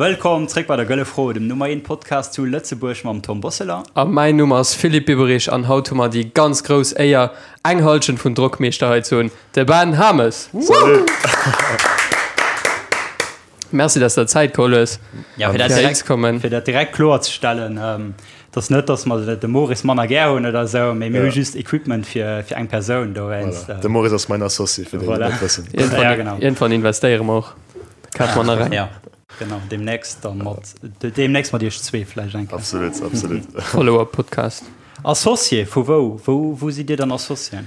Wëllkomm zréck bei der Gëlle Fro, dem Nummer 1 Podcast zu Lëtzebuerg mam Tom Bosseler. A mäin Numm ass Philippe Biberich an haut hu mer déi ganz grouss Éier, eng Hallschent vun Drockmeeschter hei ze hunn, de Ben Hames. Salut! Merci, dass du der Zäit geholl hues, Ja, fir dat fir direkt, ze kommen. fir dat direkt kloer ze stellen, ähm, dass net, dass mer de Maurice manner gär hunn oder esou, mee mir hu Ja. just Equipment fir, fir eng Persoun dowéinst. Voilà. De Maurice ass mäin Associé, fir déi, déi Voilà. net wëssen. Irgendwann, Ja, genau. irgendwann investéiere mer och. Da kafe mer nach eng. Ja, genau, demnächst dann mat, demnächst mat iech zwee vläicht eng Kéier. Absolut, absolut. Follow-up-Podcast. Associé vu wou? Wou, wou sidd Dir dann Associé?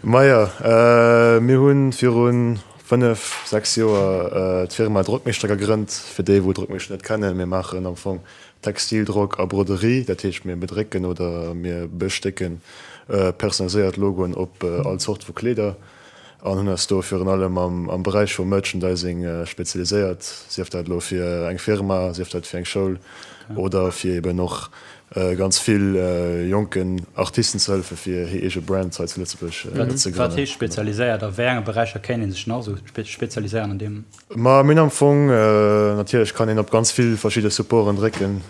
Maja, äh, mir hunn virun 5, 6 Joer d'Firma Drockmeeschter gegrënnt. Fir déi wou Drockmeeschter net kennen, mir maachen am Fong Textildrock a Broderie, dat heescht mir bedrécken oder mir bestécken personaliséiert Logoen op all Zort vu Kleeder an hunn eis do virun allem am Beräich vum Merchandising spezialiséiert, sief dat elo fir eng Firma, sief dat fir eng Schoul oder fir eben och ganz vill jonken Artisten ze hëllefen, fir hir eege Brand hei zu Lëtzebuerg ze grënnen. Wat heescht spezialiséiert? A wéi enge Beräicher kéint ee sech nach esou spezialiséieren an deem? Ma mir hunn am Fong, natierlech kann een op ganz vill verschidde Supporten drécken,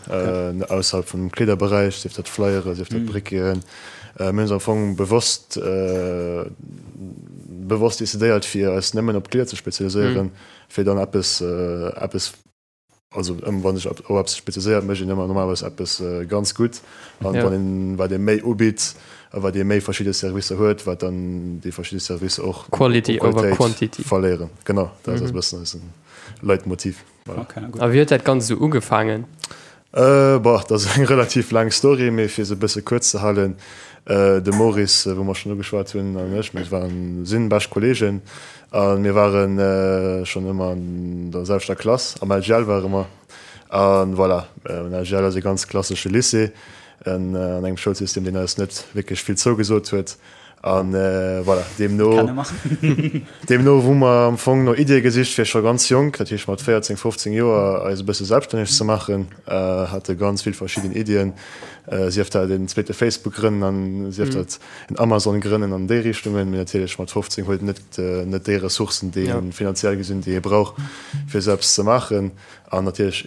ausserhalb vum Kleederberäich, sief dat Flyere, sief dat Briqueten. Mir hunn eis am Fong bewosst bewosst decidéiert, fir eis nëmmen op d'Kleeder ze spezialiséieren, fir dann eppes eppes Also ëm wann sech op eppes spezialiséiert, mécht een ëmmer normalerweis eppes ganz gutt. An wann een, wat ee méi ubitt a wat ee méi verschidde Servicer huet, wat dann déi verschidde Servicer och u Quality over Qualitéit quantity. verléieren. Genau, dat ass e bëssen eise Leitmotiv. Voilà. Okay, gutt. A wéi huet dat Ganzt esou ugefaangen? Boah, dat ass eng relativ laang Story, mee fir se e bësse kuerz ze halen, De Maurice, wou mer schonn ugeschwat hunn, an ech, mir waren, sinn bescht Kolleegen a mir ware schonn ëmmer an der selwechter Klass, am LGL ware mer. A voilà, den LGL ass e ganz klassesche Lycée an engem Schoulsystem, deen eis net wierklech vill zougesot huet. An voilà, deemno, deemno hu mer am Fong no Iddie gesicht, fir scho ganz jonk, dat heescht mat 14, 15 Joer, eis e bësse selbststänneg ze maachen. Hate ganz vill verschidden Iddien, sief dat en zweete Facebook grënnen an sief dat en Amazon grënnen an déi Richtungen. Mee natierlech mat 15 huet een net, net déi Ressourcen, déi ee finanziell gesinn, déi ee brauch, fir esou eppes ze maachen. An natierlech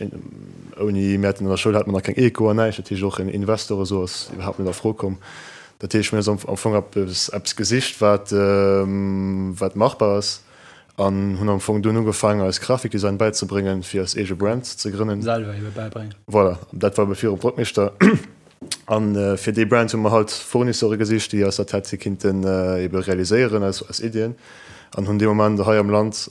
ouni, mir haten an der Schoul hate mer nach keng Eco an näischt, dat heescht och en Investor esou ass iwwerhaapt net a Fro komm. Dat heescht, mir hunn am Fong eppes, eppes gesicht, wat, wat machbar ass an hunn am Fong dunn ugefaangen, eis Grafikdesign bäizebréngen, fir eis eege Brand ze grënnen. Selwer ebe bäibréngen. Voilà, dat war ebe virum Drockmeeschter. An fir déi Brand hu mer halt Fournisseure gesicht, déi eis dat hätte kinnten ebe realiséieren, eis, eis Iddien. An hunn dee Moment hei am Land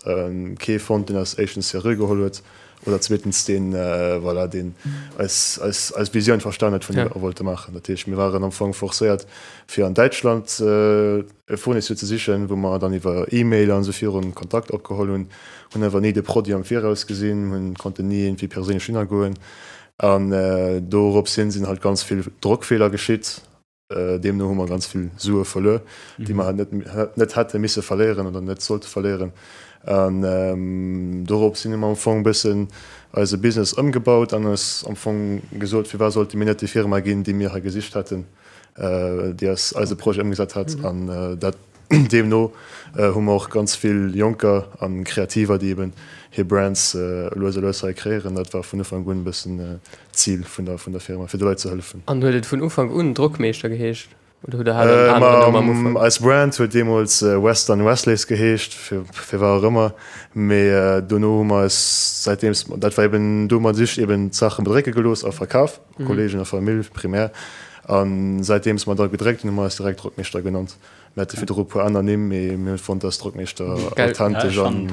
kee fonnt, deen eis éischtens seriö geholl huet Oder zweetens deen, voilà, deen eis, eis, eis Visioun verstan huet vun deem, wat mer wollte maachen. Dat heescht, mir waren am Fong forcéiert, fir an Däitschland e Fournisseur ze sichen, wou mer dann iwwer E-Mail an esou virun Kontakt opgeholl hunn, hunn awer ni de Produit am Viraus gesinn, hunn, konnten ni iergendwéi perséinlech hinnergoen. An dorops hin sinn halt ganz vill Drockfeeler geschitt. Deemno hu mer ganz vill Sue verluer, déi mer net net hätte misse verléieren oder net sollte verléieren. An dorops hin hu mer am Fong e bëssen eise Business ëmgebaut an eis am Fong gesot, firwat sollte mir net déi Firma ginn, déi mir hei gesicht hätten, déi eis eise Projet ëmgesat hätt. An dat Deemno hu mer och ganz vill Jonker a Kreativer, déi eben hir Brands lues a lues hei kreéieren. Dat war vun Ufank un e bëssen d'Zil vun der vun der Firma, fir de Leit ze hëllefen. An huet et vun Ufank un Drockmeeschter geheescht oder hutt der hat en aneren Numm am Ufank? Eis Brand huet deemools Western Wesleys geheescht, fir firwat och ëmmer. Mee dono hu mer eis säitdeems, dat war eben, do hu mer just eben d'Saache bedrécke gelooss a verkaf, Kolleegen a Famill primär. A säitdeems mer da gedréckt hunn, hu mer eis direkt Drockmeeschter genannt. Mir hate virdru e puer aner Nimm, mee mir hunn fonnt, dass Drockmeeschter authentesch an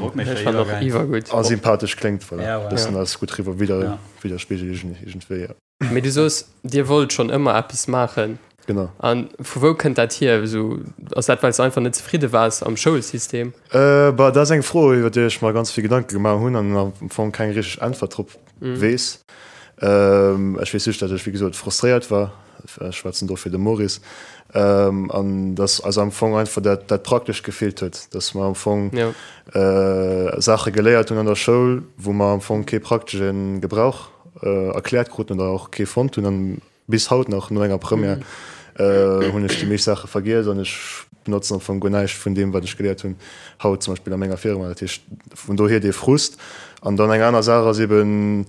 a sympathesch kléngt. Voilà, e bëssen eis gutt riwwer widder widderspigelt iergendwéi, jo. Mee du soos, Dir wollt schonn ëmmer eppes maachen. Genau. A vu wou kënnt dat hier? Esou, ass dat, well s de einfach net zefridde waars am Schoulsystem? Bah, dat ass eng Fro, iwwer déi ech mer ganz vill Gedanke gemaach hunn an am Fong keng richteg Äntwert drop weess. Ech weess just, datt ech, wéi gesot, frustréiert war. Ech schwätzen do fir de Maurice. An datt eis am Fong einfach dat, dat Praktescht gefeelt huet, datt mer am Fong Saache geléiert hunn an der Schoul, wou mer am Fong kee praktesche Gebrauch erkläert kruten oder och kee fonnt hunn. An bis haut nach, no enger Première, hunn ech déi meescht Saache vergiess an ech benotzen am Fong guer näischt vun deem, wat ech geléiert hunn haut zum Beispill a menger Firma. Dat heescht, vun dohier dee Frust. An dann eng aner Saach ass eben.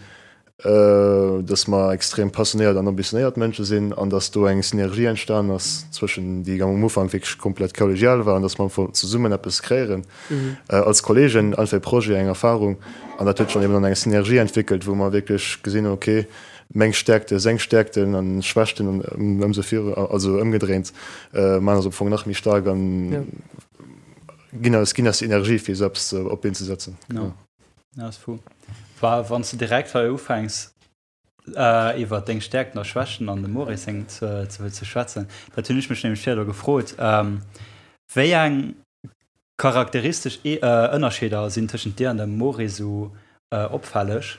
Dass mer extrem passionéiert an ambitionéiert Mënsche sinn an dass do eng Synergie entstanen ass zwëschen, déi am Ufank wierklech komplett kollegial war, an dass mer am Fong zesummen eppes kreéieren als Kollegen, einfach e Projet, eng Erfahrung. An dat huet sech dann eben an eng Synergie entwéckelt, wou mer wierklech gesinn hunn, okay, meng Stärkte, seng Stärkten an Schwächten an ëmsou viru, also ëmgedréint, maachen eis am Fong nach méi staark an ginn eis, ginn eis déi Energie, fir esou eppes op d'Been ze setzen. Ja, ass fou. Wa wann s de direkt hei ufänks iwwer deng Stäerkten a Schwächten an dem Maurice seng ze, ze, ze schwätzen, dat hunn ech mech nämlech virdu gefrot, wéi eng charakteristesch Ënnerscheeder sinn tëschent dir an dem Maurice esou opfälleg?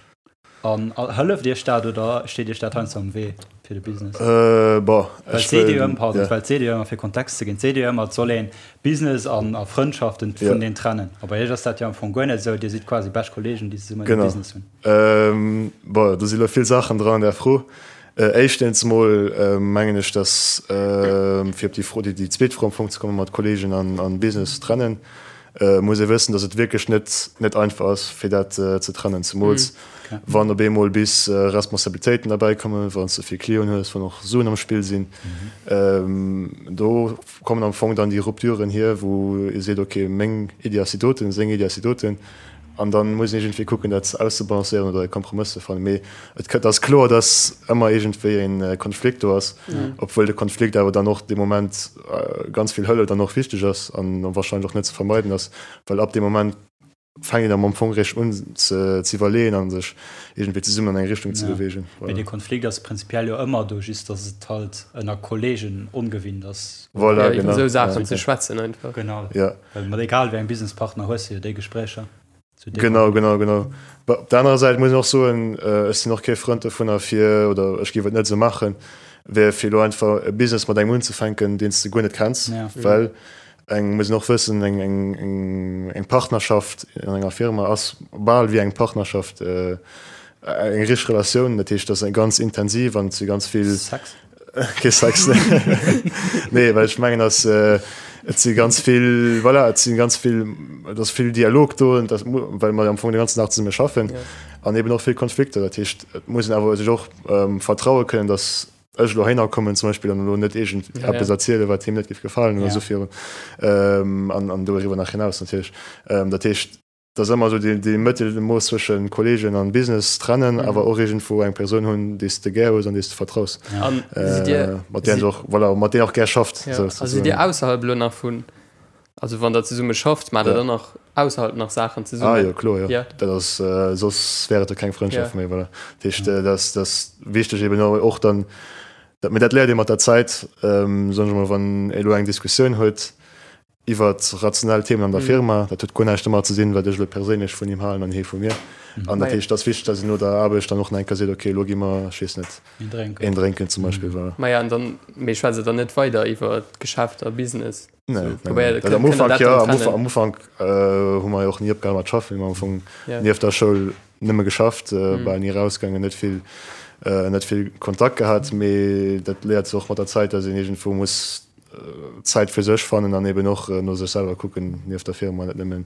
An hëlleft iech dat oder steet iech dat heiansdo am Wee fir de Business? Bon, Well ech et seet ee jo wëll, ëmmer, pardon, ja. well et seet ee jo ëmmer, fir Kontext ze ginn, et seet ee jo ëmmer, et soll een Business an a Frëndschaften Ja. vuneen trennen. A bei iech ass dat jo am Fong guer net esou, dir sidd quasi bescht Kollegen, déi zesummen e Genau. Business hunn. Bon, do si lo vill Saachen dran an där Fro. Éischtens emol mengen ech, dass, fir op déi Fro, déi zweet Fro am Fong ze kommen, mat Kollegen an Business trennen, muss ee wëssen, dass et wierklech net net einfach ass, fir dat ze trennen, zemools wann op eemol bis Responsabilitéiten derbäi kommen, wann s de vill Clienten hues, wann och Suen am Spill sinn. Do kommen am Fong dann déi Rupturen hier, wou ee seet, okay, meng Iddi ass déi doten, seng Iddi ass déi doten, an da muss een iergendwéi kucken, dat auszebalancéieren oder e Kompromëss ze fannen. Mee et ass kloer, dass ëmmer iergendwéi e Konflikt do ass, obwuel de Konflikt awer dann och dee Moment ganz vill hëlleft an och wichteg ass an wahrscheinlech och net ze vermeiden ass, well ab deem Moment fänkt een am Fong réischt un ze iwwerleeën a sech iergendwéi zesummen an eng Richtung ze beweegen. Mee dee Konflikt ass prinzipiell jo ëmmer do, just datt et halt ënner Kollegen ongewinnt ass. Voilà, Ja, iwwer genau. esou Saachen Ja. ze schwätzen einfach. Genau. Ja. Well mat egal wéi engem Businesspartner hues de jo déi Gespréicher. Zu deem Genau, Moment. genau, genau. Bah, op der anerer Säit muss een och soen, ech sinn och kee Frënd dovunner fir, oder ech géif et net esou maachen, wär fir elo einfach e Business mat engem unzefänken, deen s de guer net kenns, Ja. well eng, muss een och wëssen, eng, eng, eng, eng Partnerschaft an enger Firma ass bal wéi eng Partnerschaft, eng richteg Relatioun. Dat heescht, dat ass eng ganz intensiv an et si ganz vill. Sex? Kee Sex, nee. Nee, well ech mengen, dass et si ganz vill, voilà, et si ganz vill, et ass vill Dialog do, und das, well mer am Fong de ganzen Dag zesumme schaffen Ja. an eben och vill Konflikter. Dat heescht, et muss een awer sech och vertraue kënnen, dass ech elo heihinner kommen zum Beispill an elo net iergend Ja, eppes ja. erzielen, wat him net géif gefalen oder Ja. esou virun. An, an doriwwer nach hinaus natierlech. Dat heescht, Et ass ëmmer esou dee, dee Mëttelmooss zwëschen Kolleegen an Business trennen, awer och iergendwou eng Persoun hunn, déi s de gär hues an déi s de vertraus. An sidd Dir, Mat där s och, voilà, mat deem och gär schafft. Ja, a sidd Dir ausserhalb elo nach vun, also wann Der zesumme schafft, maacht Der dann nach ausserhalb nach Saachen zesummen? Ah jo, kloer, jo. Ja. Dat ass, soss wär et jo keng Frëndschaft Ja. méi, voilà. Dat heescht, dat ass, dat ass wichteg eben och dann, dat, mee dat léiert ee mat der Zäit, soen ech emol, wann ee elo eng Diskussioun huet, iwwert rationell Themen an der Firma. Dat huet guer näischt domat ze dinn, wat ech elo perséinlech vun him halen an hie vu mir. An dat heescht, et ass wichteg, datt een no der Aarbecht dann och nach eng Kéier seet, okay, elo gi mer, ech weess net, een drénken zum Beispill. Voilà. Maja, an dann, mee schwätzt Der dann net weider iwwer Geschäft a Business? Nee, nee, nee. Am Ufank jo, am Ufank, am Ufank hu mer jo och ni opgehal mat schaffen. Mir hu am Fong nieft der Schoul nëmme geschafft, bal ni erausgaangen, net vill, net vill Kontakt gehat. Mee dat léiert sech och mat der Zäit, datt een iergendwou muss Zäit fir sech fannen an eben och no sech selwer kucken nieft der Firma, net nëmmen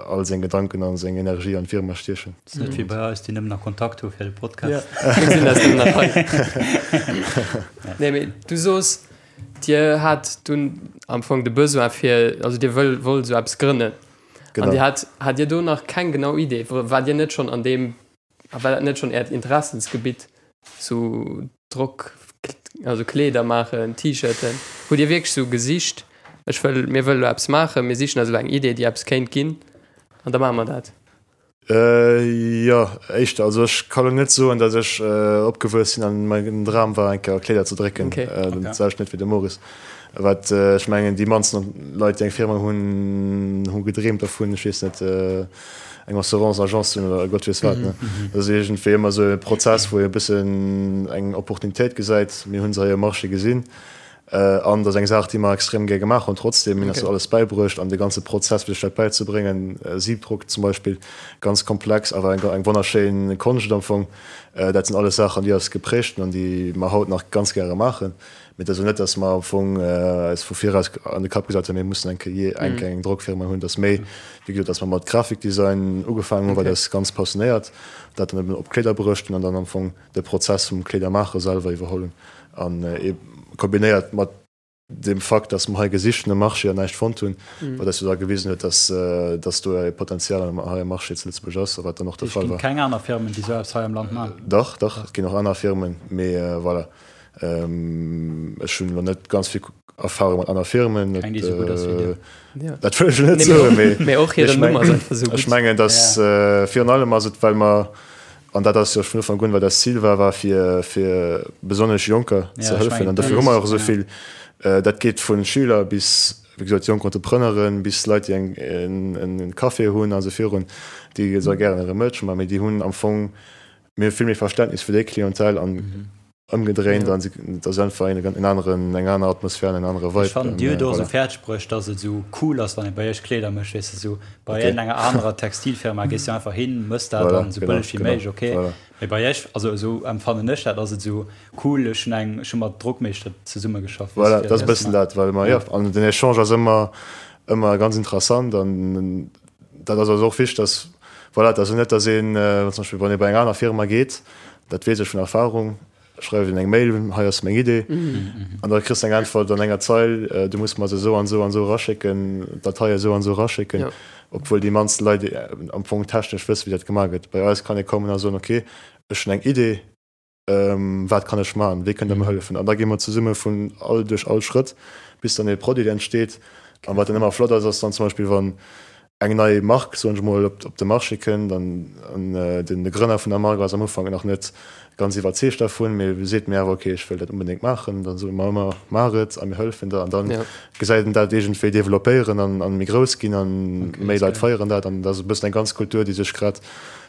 all seng Gedanken a seng Energie an d'Firma stiechen. Ass net wéi bei eis, déi nëmmen nach Kontakt hu fir de Podcast. Ja, mir sinn eis nëmmen nach hei. Nee, mee du soos, Dir hat dunn am Fong de Besoin fir, also Dir wëll, wollt esou eppes grënnen. Genau. An Dir hat, hat Dir do nach keng genau Idee? Waart Dir net schonn an deem A war dat net schonn Äert Interessensgebitt, sou Drock, also Kleeder maachen, T-Shirten? Hutt Dir wierklech sou gesicht, ech wëll, mir wëlle lo eppes maachen, mir sichen eis elo eng Idee, déi eppes kéint ginn an da maache mer dat? Jo, éischter. Also ech ka lo net soen, datt ech opgewuess sinn an mäin Dram war eng Kéier Kleeder ze drécken. Dat selwecht net wéi de Maurice. Wat ech mengen, déi mannsten Leit, déi eng Firma hunn, hu gedreemt dervun, ech weess net, eng Assurance-Agence ze hunn oder Gott weess wat. Dat ass iergendwéi ëmmer esou e Prozess, wou ee e bëssen eng Opportunitéit gesäit. Mir hu se hei um Marché gesinn. An dat ass eng Saach, déi mer extrem gär gemaach hunn trotzdem. Mir hunn eis dat alles bäibruecht an de ganze Prozess, fir sech dat bäizebréngen, Siebdruck zum Beispill, ganz komplex, awer eng eng wonnerschéin Konscht am Fong. Dat sinn alles Saachen, déi eis geprägt hunn an déi mer haut nach ganz gäre maachen. Mee et ass elo net, datt mer am Fong eis vu viraus an de Kapp gesat hunn, mir mussen eng Kéier eng Kéier eng Drockfirma hunn. Et ass méi, wéi gesot, datt mer mat Grafikdesign ugefaangen hunn, wat eis ganz passionéiert, dat dann eben op Kleeder bruecht hunn an dann am Fong de Prozess vum Kleedermaache selwer iwwerholl hunn an kombinéiert mat dem Fakt, dass mer hei gesicht hunn am Marché an näischt fonnt hunn, wat eis jo da gewisen huet, dass dass do e Potenzial hei am Marché zu Lëtzebuerg ass a wat dann och de Fall war. Et ginn keng aner Firmen, déi esou eppes hei am Land maachen? Dach, dach, et ginn och aner Firmen, mee voilà, ech hunn elo net ganz vill Erfahrung mat aner Firmen. Keng, déi esou gutt ass wéi dir. Dat wëll ech elo net soen, mee ech mengen, dass virun allem ass et, well mer, An dat ass jo vun Ufank un, wat eist Zil war, war fir, fir besonnesch Jonker ze hëllefen. An dofir hu mer och esou vill, dat geet vu Schüler bis, wéi gesot, jonk Entrepreneuren, bis Leit, déi eng, en Café hunn a sou virun, déi esou gären hire Merch maachen, mee déi hunn am Fong, mir hu vill méi Verständnis fir déi Clientèle an ëmgedréint an et ass einfach en aneren, eng aner Atmosphär an en anere Vibe. Ech fannen, Dir hutt och esou fäerdeg bruecht, dass et esou cool ass, wann ee bei Iech Kleeder mécht, weess de, esou bei iergendenger anerer Textilfirma gees du einfach hin, mëss dat dann esou bëlleg wéi méiglech, ok, mee bei Iech, also esou emfannen ech dat, ass et esou cool, ech hunn eng, ech hu mat Drockmeeschter zesummegeschafft, weess de, fir dat ze maachen. Voilà, dat ass e bëssen dat, well mer, jo, an den Echange ass ëmmer, ëmmer ganz interessant an dat ass eis och wichteg, dass, voilà, et ass jo net, dass een, zum Beispill wann ee bei eng aner Firma geet, Dat weess ech vun Erfahrung. Schreif een eng Mail, hei ass meng Idee, an da kriss de eng Äntwert an enger Zeil, du muss mer se esou an esou an esou eraschécken, d'Datei esou an esou eraschécken, obwuel déi mannst Leit am Fong technesch wëssen, wéi dat gemaach gëtt. Bei eis kann ee kommen a soen, ok, ech hunn eng Idee, wat kann ech maachen, wéi kënnt Der mer hëllefen? An da gi mer zesumme vun all duerch all Schrëtt, bis dann ee Produit entsteet. An wat dann ëmmer flott ass, ass dann zum Beispill, wann eng nei Mark, soen ech mol, op de Marché kënnt an de Grënner vun der Mark ass am Ufank nach net ganz iwwerzeegt dervun, mee seet mir awer, ok, ech wëll dat onbedéngt maachen, dann soe mer ëmmer, maach et a mir hëllefen der an dann gesäit en dat iergendwéi developpéieren an méi grouss ginn an méi Leit feieren dat an dat ass e bëssen eng ganz Kultur, déi sech grad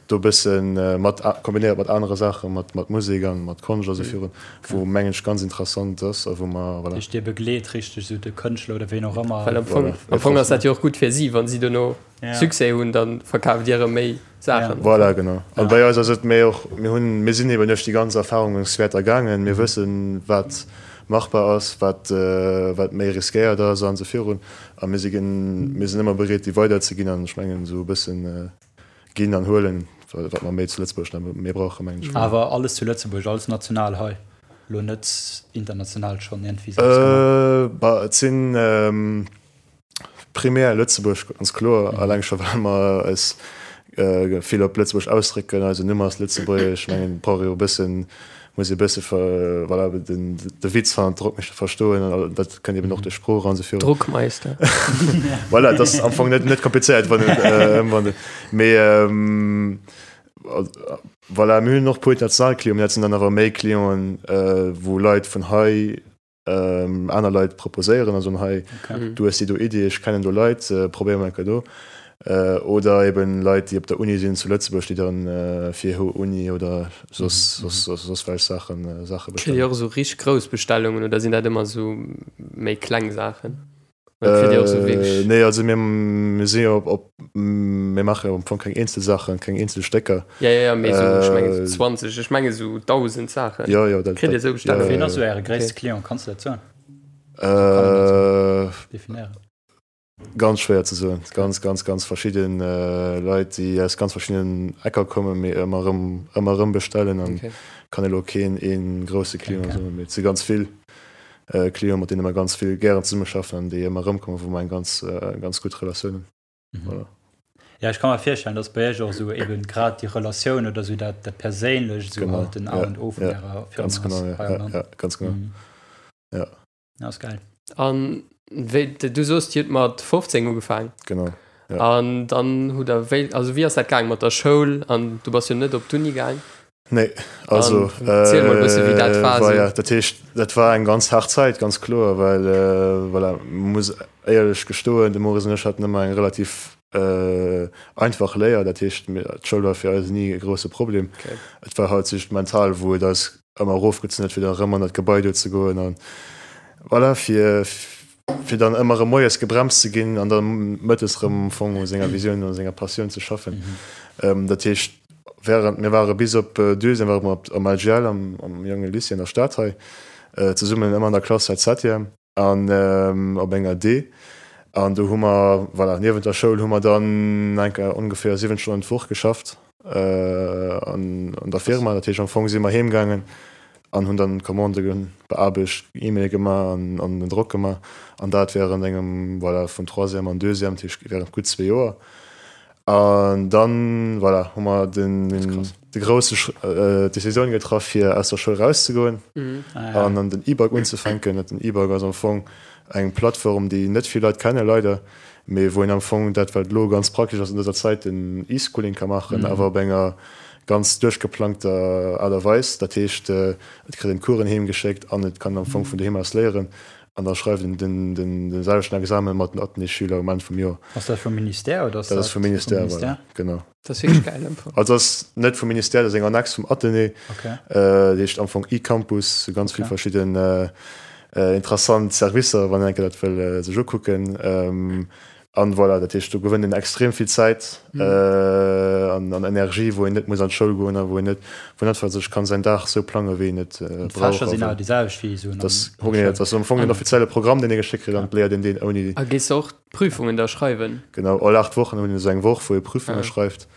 do e bësse mat kombinéiert mat anere Saachen, mat mat Musek an mat Konscht a sou virun, wou mengen ech ganz interessant ass a wou mer, voilà. Heescht Dir begleet richteg esou de Kënschtler oder ween och ëmmer? Well am Fong, am Fong ass dat jo och gutt fir si, wann si dono Succès hunn, da verkaaft Dir erëm méi Saachen. Voilà, genau. An bei eis ass et méi och, mir hunn, mir sinn eben duerch déi ganz Erfahrungswäerter gaangen, mir wëssen, wat machbar ass, wat wat méi riskéiert ass an esou virun. A mir si gen, mir sinn ëmmer bereet, déi weiderzeginn an ech mengen esou e bëssen, Ginn an huelen, wat mer méi zu Lëtzebuerg nach méi brauchen, mengen ech. Awer alles zu Lëtzebuerg, alles national hei, elo net international schonn iergendwéi selbst gemaach? Bah, et sinn primär Lëtzebuerg, ganz kloer, alleng scho well mer eis vill op Lëtzebuerg ausdrécken, eisen Numm ass lëtzebuergesch, ech mengen, et brauch ee jo e bëssen muss ee bësse voilà, den, de Witz van Drockmeeschter verstoen an dat kënnt eben och duerch Sprooch an esou virun. Druckmeister. Voilà, dat ass am Fong net, net komplizéiert, wann et, äh, wann et, mee ähm, voilà, mir hunn och puer international Clienten, mee dat sinn dann awer méi Clienten, äh, wou Leit vun hei ähm, aner Leit proposéieren, also hei, okay. du hues déi do Idee, ech kennen do Leit, äh, probéier mal do. Äh, oder eben Leit, déi op der Uni sinn zu Lëtzebuerg, déi dann äh, fir hir Uni oder soss, mhm. soss, soss, soss welch Saachen, äh, Saache bestellen. Kritt Dir och esou richteg grouss Bestellungen oder sinn dat ëmmer esou méi kleng Saachen? Äh, nee, also mir, mir sinn jo op, op, mir maache jo am Fong keng eenzel Saachen, keng eenzel Stécker. Ja, ja, ja, mee esou, ech menge sou 20, ech menge sou 1.000 Saachen. Ja, ja, dat, Kritt Dir esou Bestellungen? Ween ass esou Äre gréisste Client? Kanns du dat soen? Äh, Definéieren. Ganz schwéier ze soen. Ganz, ganz, ganz verschidden Leit, déi aus ganz verschiddenen Ecker kommen, mee ëmmer erëm, ëmmer erëm bestellen an okay. Kann elo keen ee grousse Client okay. soen, mee et si ganz vill Clienten, mat deene mer ganz vill gären zesummeschaffen an déi ëmmer erëmkommen, wou mer eng ganz, ganz gutt Relatioun hunn. Mhm. Voilà. Ja, ech kann mer virstellen, dass bei Iech och esou eben grad déi Relatioun oder esou dat, dat Perséinlecht esou halt den A und O vun ja, ärer Firma ganz genau, ja, ja, ja, ganz genau. Mhm. Ja. Ja, ass geil. An wéi, du soos, Dir hutt mat 15 ugefaang. Genau, ja. An dann hutt der wéi, also wéi ass dat gaang mat der Schoul? An du bass jo net op d'Uni gaang. Nee, also. An erziel mol e bësse wéi dat war esou. Dat heescht, dat war eng ganz haart Zäit, ganz kloer, well, voilà, muss éierlech gestoen, de Maurice an ech haten ëmmer eng relativ einfach Léier. Dat heescht, d'Schoul war fir eis ni e grousse Problem. Et war halt just mental, wou et eis ëmmer erofgezunn huet, fir da erëm an dat Gebai do ze goen. An. Voilà, fir, fir dann ëmmer erëm moies gebremst ze ginn an dann mëttes erëm am Fong u senger Visioun, u senger Passioun ze schaffen. Dat heescht, während, mir ware bis op Deuxième ware mer am LGL, am, am jonge Lycée an der Stad hei, zesummen ëmmer an der Klass seit Septième an op enger D. An do hu mer, voilà, niewent der Schoul hu mer dann enker ongeféier 7 Stonnen d'Woch geschafft an der Firma. Dat heescht, am Fong si mer heemgaangen an hunn dann d'Commandë beaarbecht, E-Maile gemaach an an den Drock gemaach an dat während engem, voilà, vun Troisième an Deuxième, dat heescht während gutt zwee Joer. An dann, voilà, hu mer den de grousse d'Decisioun getraff fir aus der Schoul rauszegoen an an den E-Bike unzefänken. Den E-Bike ass am Fong eng Plattform, déi net vill Leit kennen, leider, mee wou een am Fong dat, wat elo ganz praktesch ass an dëser Zäit, den E-Schooling ka maachen, awer op enger ganz duerchgeplangter Aart a Weis. Dat heescht, et kritt een d'Coursen heem geschéckt an et kann am Fong vun doheem aus léieren an da schreift een den, den, den selwechten Examen mat den Athénée-Schüler um Enn vum Joer. Ass dat vum Ministère oder ass dat? Dat ass vum Ministère, voilà, genau. Dat ass wierklech gäil am Fong. Also ass net vum Ministère, dat ass eng Annex vum Athénée. Okay. Dat heescht am Fong eCampus, ganz vill verschidden interessant Servicer, wann een eng Kéier dat wëll sech ukucken. An voilà, dat heescht do gewënnt een extrem vill Zäit an an Energie, wou een net muss an d'Schoul goen a wou een net, wou een einfach sech kann säin Dag sou plange wéi een et brauch. D'Fächer sinn awer déi selwecht wéi esou an der Schoul. Dat ass am Fong den offizielle Programm, deen ee geschéckt kritt an et léiert een deen ouni. A gees de och d'Prüfungen da schreiwen? Genau, all 8 Wochen hunn een esou eng Woch, wou ee Prüfunge schreift.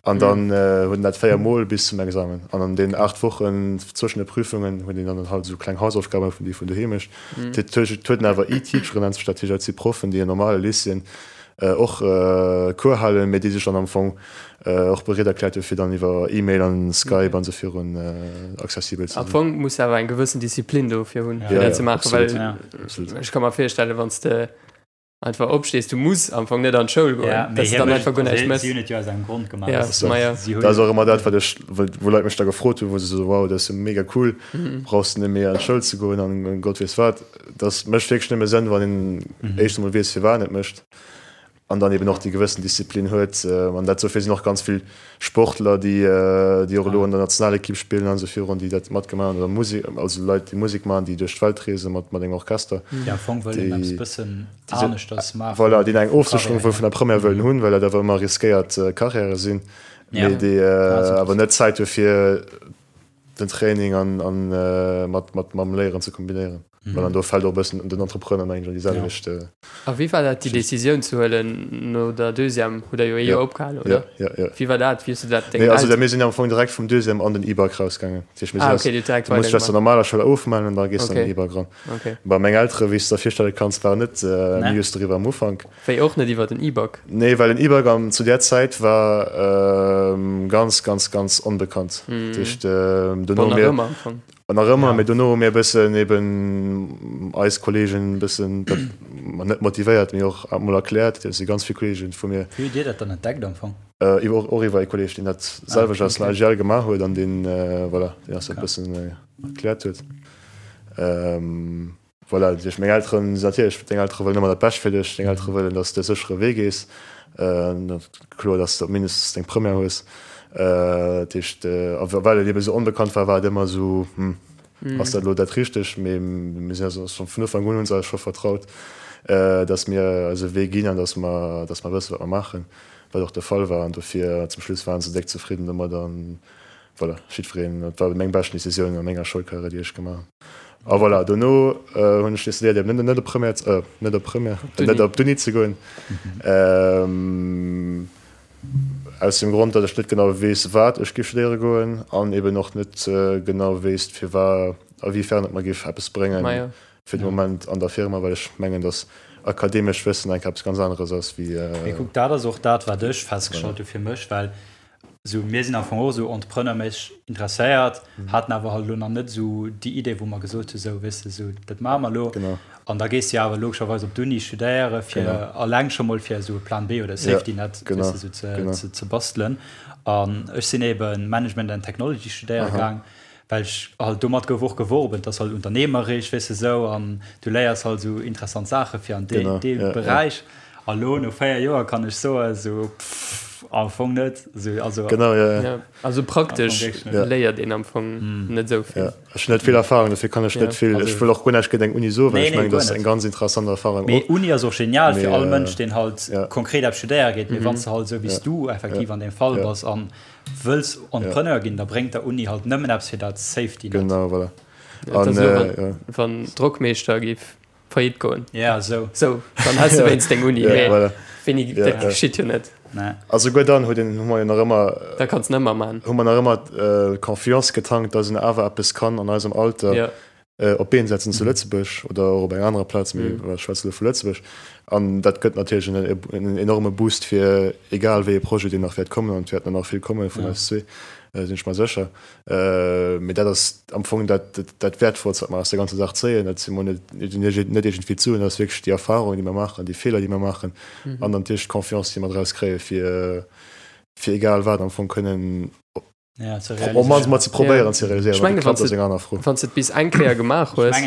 An dann huet en dat 4 Mol bis zum Examen. An an deenen 8 Wochen zwëschen de Prüfungen huet een dann halt esou kleng Hausaufgaben, vun déi vun doheem mécht. Et huet en awer E-Teacheren, nennt sech dat, dat si Proffen, déi an normale Lycéeën och Cours halen, mee déi sech dann am Fong och bereet erkläert hunn, fir dann iwwer E-Mail an Skype an esou virun accessibel ze sinn. Am Fong muss de awer eng gewëssen Disziplin dofir hunn, fir dat ze maachen, well ech ka mer virstellen, wann s de einfach opstees, du muss am Fong net an d'Schoul goen, ja, dass du dann einfach guer näischt méchs. Si hunn et jo aus engem Grond gemaach. Ja, ma ja. Dat ass och ëmmer dat, wat ech, wou Leit mech da gefrot hunn, wou se sou, wow, dat ass jo mega cool, brauchs de net méi an d'Schoul ze goen an Gott weess wat. Dat mécht wierklech nëmme Sënn, wann een éischt emol weess, firwat een et mécht an dann eben och déi gewëssen Disziplin huet. An dat dofir sinn och ganz vill Sportler, déi, déi och elo an der Nationalekipp spillen an esou virun, déi dat matgemaach hunn, oder Musek, also Leit, déi Musek maachen, déi duerch d'Welt reese mat, mat engem Orchester. Déi am Fong wëllen eppes bëssen aneschters maachen. Voilà, déi eng Ofsécherung wuel vun der Première wëllen hunn, well dat awer ëmmer riskéiert Carrièrë sinn, mee déi awer net Zäit hu fir den Training an, an mat, mat, mam Léieren ze kombinéieren. Mhm. Well an do fält och e bëssen den Entrepreneur mengen ech an déi selwecht. Ja. A wéi war dat déi Decisioun ze huelen no der Deuxième? Hutt der jo ee Joer opgehalen, oder? Ja, ja, ja. Wéi war dat? Wéi hues du dat dengem Nee, also Elteren. mir sinn am Fong direkt vum Deuxième an den E-Bike rausgaangen. Dat heescht, mir sinn Ah, okay, dir hutt direkt du musst dech aus der normaler Schoul ofmellen an da gees du an den E-Bike ran. Okay. Bon, meng Eltere, wéi s du der virstelle kanns, waren net amused doriwwer am Ufank. Wéi och net iwwer den E-Bike? Nee, well den E-Bike am zu där Zäit war ganz, ganz, ganz onbekannt. Dat heescht, dono Bon, nach ëmmer am Fong. An nach ëmmer, mee dono hu mir e bëssen eben eis Kollegen e bëssen dat, ma net motivéiert, mee och emol erkläert. Et si ganz vill Kollegen vu mir. Wéi hutt Dir dat dann entdeckt am Fong? Iwwer, och iwwer ee Kolleg, deen dat selwecht aus dem LGL gemaach huet an deen, voilà, deen eis dat e bëssen erkläert huet. Voilà, duerch meng Elteren, natierlech, deng Eltere wëllen ëmmer dat Bescht fir dech, deng Eltere wëllen, datt s de e séchere Wee gees, kloer, datt s de op mindestens deng Première hues. Dat heescht, a well et ebe sou onbekannt war, war et ëmmer esou, hm, ass dat elo dat Richtegt? Mee mir sinn eis scho vun Ufank un hu se eis scho vertraut, datt mir eise Wee ginn an datt mer, datt mer wëssen, wat mer maachen, wat och de Fall war. An dofir zum Schluss waren se déck zefridden domat an Voilà, jiddwereen, dat war meng beschten Decisioun a menger Schoulkarriär, déi ech gemaach hunn. A voilà, dono hunn ech decidéiert, eben net op Première, net op Première, net op d'Uni ze goen. Aus dem Grond, datt ech net genau weess, wat ech géif studéiere goen an eben och net genau wéisst, firwat, a wéi fern et mer géif eppes bréngen fir de Moment an der Firma, well ech mengen, datt akademescht Wëssen enk eppes ganz aneres ass wéi. Mee kuck, dat ass och dat, wat ech festgestallt hu fir mech, well Sou, mir sinn am Fong och esou entrepreneurméisseg interesséiert, haten awer halt elo nach net esou déi Idee, wou mer gesot hu sou, weess de, sou dat maache mer elo. Genau. An da gees de jo awer logescherweis op d'Uni studéiere fir Genau. alleng scho mol fir esou e Plan B oder e Safety Net, Genau, weess de, sou ze, genau. ze, ze bastelen. An ech sinn ebe Management and Technology studéiere Aha. gaang, well ech halt, domat gouf och geworben, et ass halt unternehmerisch, weess de, sou, an du léiers halt esou interessant Saache fir an dee, Genau, dee ja, ja. Beräich. A lo no 4 Joer kann ech soen, sou, pff. Am Fong net. Also, genau, ja, ja. Ja, also praktesch ja. léiert een am Fong mm. net sou vill. Ja. Ech hunn net vill Erfahrung, dofir kann ech ja. net vill. Ech wëll och guer näischt géint eng Uni soen, well nee, ech mengen, dat ass eng ganz interessant Erfahrung. Mee Uni ass och genial fir all Mënsch, deen halt ja. konkret eppes studéiere geet. Mee mm -hmm. wann s du halt sou wéi s ja. du effektiv ja. an deem Fall ja. bass an wëlls Entrepreneur ja. ginn, da bréngt der Uni halt nëmmen eppes fir dat Safety Net. Genau, voilà. Ja, an, äh, ja. Wann Drockmeeschter giff Faillite goen. Ja, sou. Sou, dann häss de wéinst deng Uni. Ja, Mee voilà. wéini, Ja, dat ja. geschitt jo net. Nee. A souguer dann huet een, hu mer jo nach ëmmer, Da kanns de ëmmer man. hu mer nach ëmmer d'Confiance getankt, dass een awer eppes kann an eisem Alter Ja. op d'Been setzen zu Lëtzebuerg oder och op enger anerer Plaz, mee ech schwätze elo vu Lëtzebuerg. An dat gëtt natierlech en, en enorme Boost fir egal wéi ee Projet, deen nach wäert kommen, an et wäerten der nach vill komme vun eis zwee, sinn ech mer sécher. Mee dat ass am Fong dat, dat Wäertvollst, wat mer aus der ganzer Saach zéien. Dat si mol net, net iergendwéi d'Suen, dat ass wierklech déi Erfahrung, déi mer maachen, déi Feeler, déi mer maachen an dann natierlech d'Confiance, déi mer draus kréien, fir, fir egal wat am Fong kënnen op d'mannst mol ze probéieren ze realiséieren. Ech mengen, wann s de, wann s de et bis eng Kéier gemaach hues,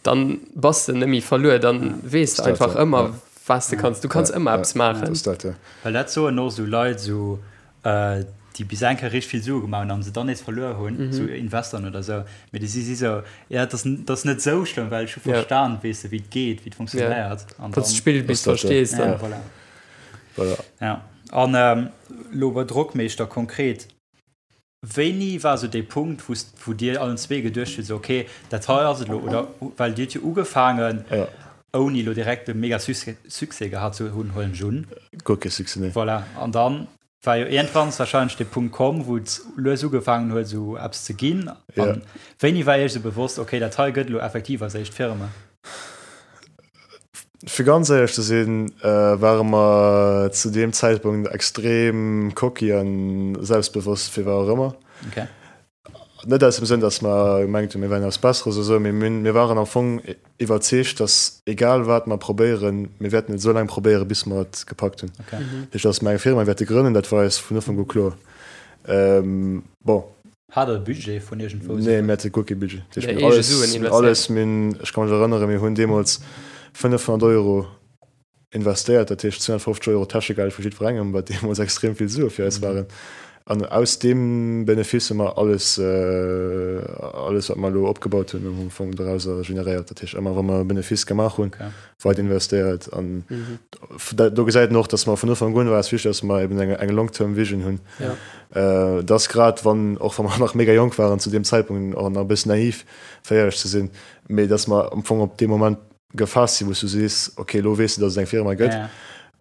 dann bass de net méi verluer, dann weess de einfach ëmmer, wat s de kanns. Du kanns ëmmer eppes maachen. Well dat soen och esou Leit, esou déi bis eng Kéier richteg vill Sue gemaach hunn an se dann nees verluer hunn, mm -hmm. sou Investoren oder sou, mee déi si si sou, ja, dat ass, dat ass net sou schlëmm, well ech hu verstan, weess de, wéi et geet, wéi et funktionéiert. Ja. Wann s de d'Spill bis verstees, dann. Ja, voilà. Voilà. Ja. An ähm, lo bei Drockmeeschter konkret, wéini war sou dee Punkt, wou, wou dir allen zwee geduecht hutt, sou, okay, dat hei ass et lo, oder well dir hutt jo ugefaangen, ja. ouni lo direkt e mega Succès gehat ze hunn, huelen ech un. Guer kee Succès, nee. Voilà. An dann war jo iergendwanns wahrscheinlech de Punkt komm, wou et lues ugefaangen huet, esou eppes ze ginn. An wéini war Iech esou bewosst, okay, dat hei gëtt elo effektiv eis éischt Firma? Fir ganz éierlech ze sinn, ware mer zu deem Zäitpunkt extrem cocky a selbstbewosst, fir wat och ëmmer. Okay. Net aus dem Sënn, datt mer gemengt hunn, mir wären eppes Besseres oder esou, mee mir waren am Fong iwwerzeegt, datt egal wat mer probéieren, mir wäerten et esou laang probéieren, bis mer et gepackt hunn. Okay. Dat heescht, datt mer eng Firma wäerte grënnen, dat war eis vun Ufank u kloer. Bon. Hat Der e Budget vun iergendwou? Nee, mir hate guer kee Budget. Dat heescht, Nee, mir hunn eege alles, Suen mir hunn investéiert. alles, mir hunn, ech ka mech erënneren, mir hunn deemools 500 Euro investéiert, dat heescht 250 Euro Täschegeld vu jiddwerengem, wat deemools extrem vill Sue fir eis waren. An aus deem Benefice hu mer alles, alles wat mer elo opgebaut hunn, am Fong dorauser generéiert. Dat heescht, ëmmer wa mer e Benefice gemaach hunn, weider investéiert. An do gesäit een och, datt mer vun Ufank un war eis wichteg, datt mer eben eng, eng long-term vision hunn. Dass grad wann, och wa mer nach mega jonk waren zu deem Zäitpunkt, och nach e bëssen naiv, fir éierlech ze sinn, mee datt mer am Fong op dee Moment gefaasst sinn, wou s du sees, ok, elo weess de, datt et eng Firma gëtt.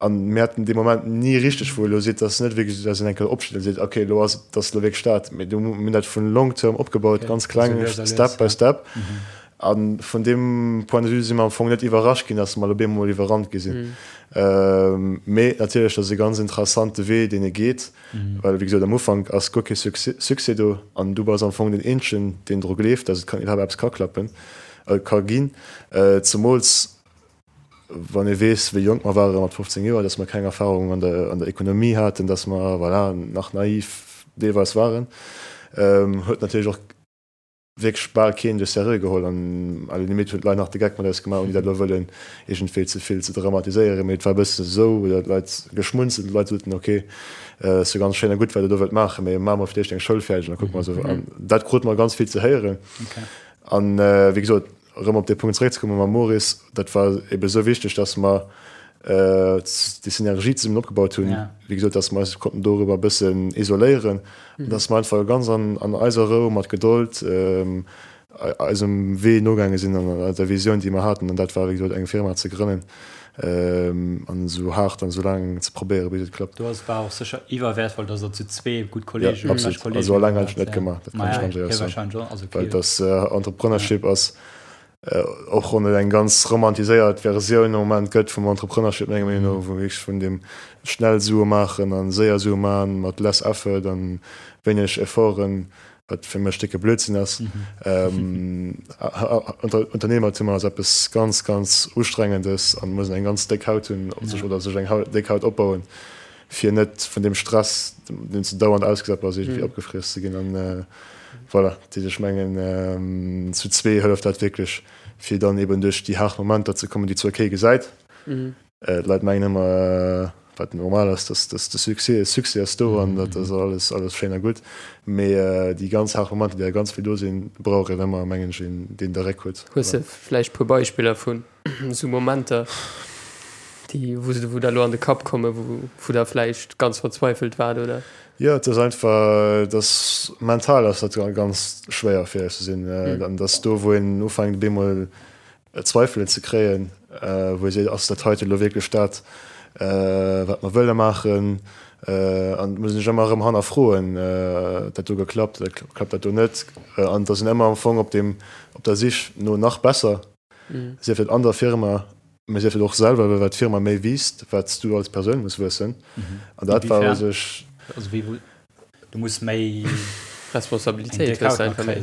An mir haten dee Moment ni richteg, wou elo seet, datt net wierklech, datt een eng Kéier opsteet a seet, ok, elo ass et, datt elo wierklech dat. Mee du, mir hunn dat vun long term opgebaut, ganz kleng, step by step. A vun deem Point de vue si mer am Fong net iwwerrascht ginn, datt mer elo bemol iwwerrannt gi sinn. Mee natierlech, dat ass e ganz interessante Wee, deen ee geet, well wéi gesot, am Ufank ass guer kee Succès do an du bass am Fong deen Eenzegen, deen dru gleeft, datt et kann iwwerhaapt eppes ka klappen. Ka ginn, zemools wann ee weess, wéi jonk mer ware mat 15 Joer, datt mer keng Erfahrung an der an der Ekonomie haten, datt mer, voilà, nach naiv deelweis waren, huet natierlech och wierklech bal keen de sérieux geholl an à la limite hunn d'Leit nach de Geck mat eis gemaach, ouni dat elo wëllen iergendwéi ze vill ze dramatiséieren, mee et war e bëssen esou, oder d'Leit geschmunzelt, d'Leit soten, ok, ass jo ganz schéin a gutt, wat der do wëllt maachen, mee maache mer fir d'éischt eng Schoul fäerdeg an da kucke mer esou. An dat krute mer ganz vill ze héieren. An wéi gesot, erëm op dee Punkt zeréckzekommen mam Maurice, dat war ebe esou wichteg, dass mer déi Synergie zesummen opgebaut hunn, wéi gesot, dass mer eis konnten dorüber e bëssen isoléieren an dass mer einfach ganz an eiser Rou, mat Gedold eisem Wee nogaange sinn an der Visioun, déi mer haten. An dat war, wéi gesot, eng Firma ze grënnen an esou haart an esou laang ze probéieren, bis et klappt. Do ass war och sécher iwwerwäertvoll, dass der zu zwee gutt Kollegen, Ja, absolut. Also alleng hätt ech et net gemaach, dat kann ech ganz éierlech soen. Well dass Entrepreneurship ass, och wann et eng ganz romantiséiert Versioun am Moment gëtt vum Entrepreneurship, menger Meenung no, wou wierklech vun deem schnell Sue maachen a séier Sue maachen mat less effort a wéineg Efforten, wat fir mech décke Blödsinn ass. Unternehmertum ass eppes ganz, ganz Ustrengendes an muss een eng ganz déck Haut hunn op sech oder sech eng déck Haut opbauen, fir net vun deem Stress, deem s de dauernd ausgesat bass, iergendwéi opgefriess ze ginn. An voilà, dat heescht, ech mengen, zu zwee hëlleft dat wierklech, fir dann eben duerch déi haart Momenter ze kommen, déi zwar kee gesäit. D'Leit mengen ëmmer. wat normal ass, dass dass de Succès, Succès ass do an dat ass alles alles schéin a gutt, mee déi ganz haart Momenter, déi da ganz vill do sinn, brauch een ëmmer, mengen ech, een, deen de Réck huet. Hues de vläicht e puer Beispiller vun esou Momenter, déi wou se wou der elo an de Kapp kommen, wou wou der vläicht ganz verzweifelt waart, oder? Jo, et ass einfach, dass mental ass dat ganz schwéier fir ehrlech ze sinn, an dass do wou een ufänkt op eemol Zweifelen ze kréien, wou ee seet, ass dat heite elo wierklech dat, wat mer wëlle maachen? An et muss een sech ëmmer erëm hannerfroen, huet dat do geklappt oder klappt dat do net? An et ass een ëmmer am Fong op deem, op der Sich no nach besser, sief dat an der Firma, mä sief dat och selwer, well wat d'Firma méi wiisst, wat s du als Persoun muss wuessen. An dat war u sech. Du muss méi Responsabilitéit hues einfach méi.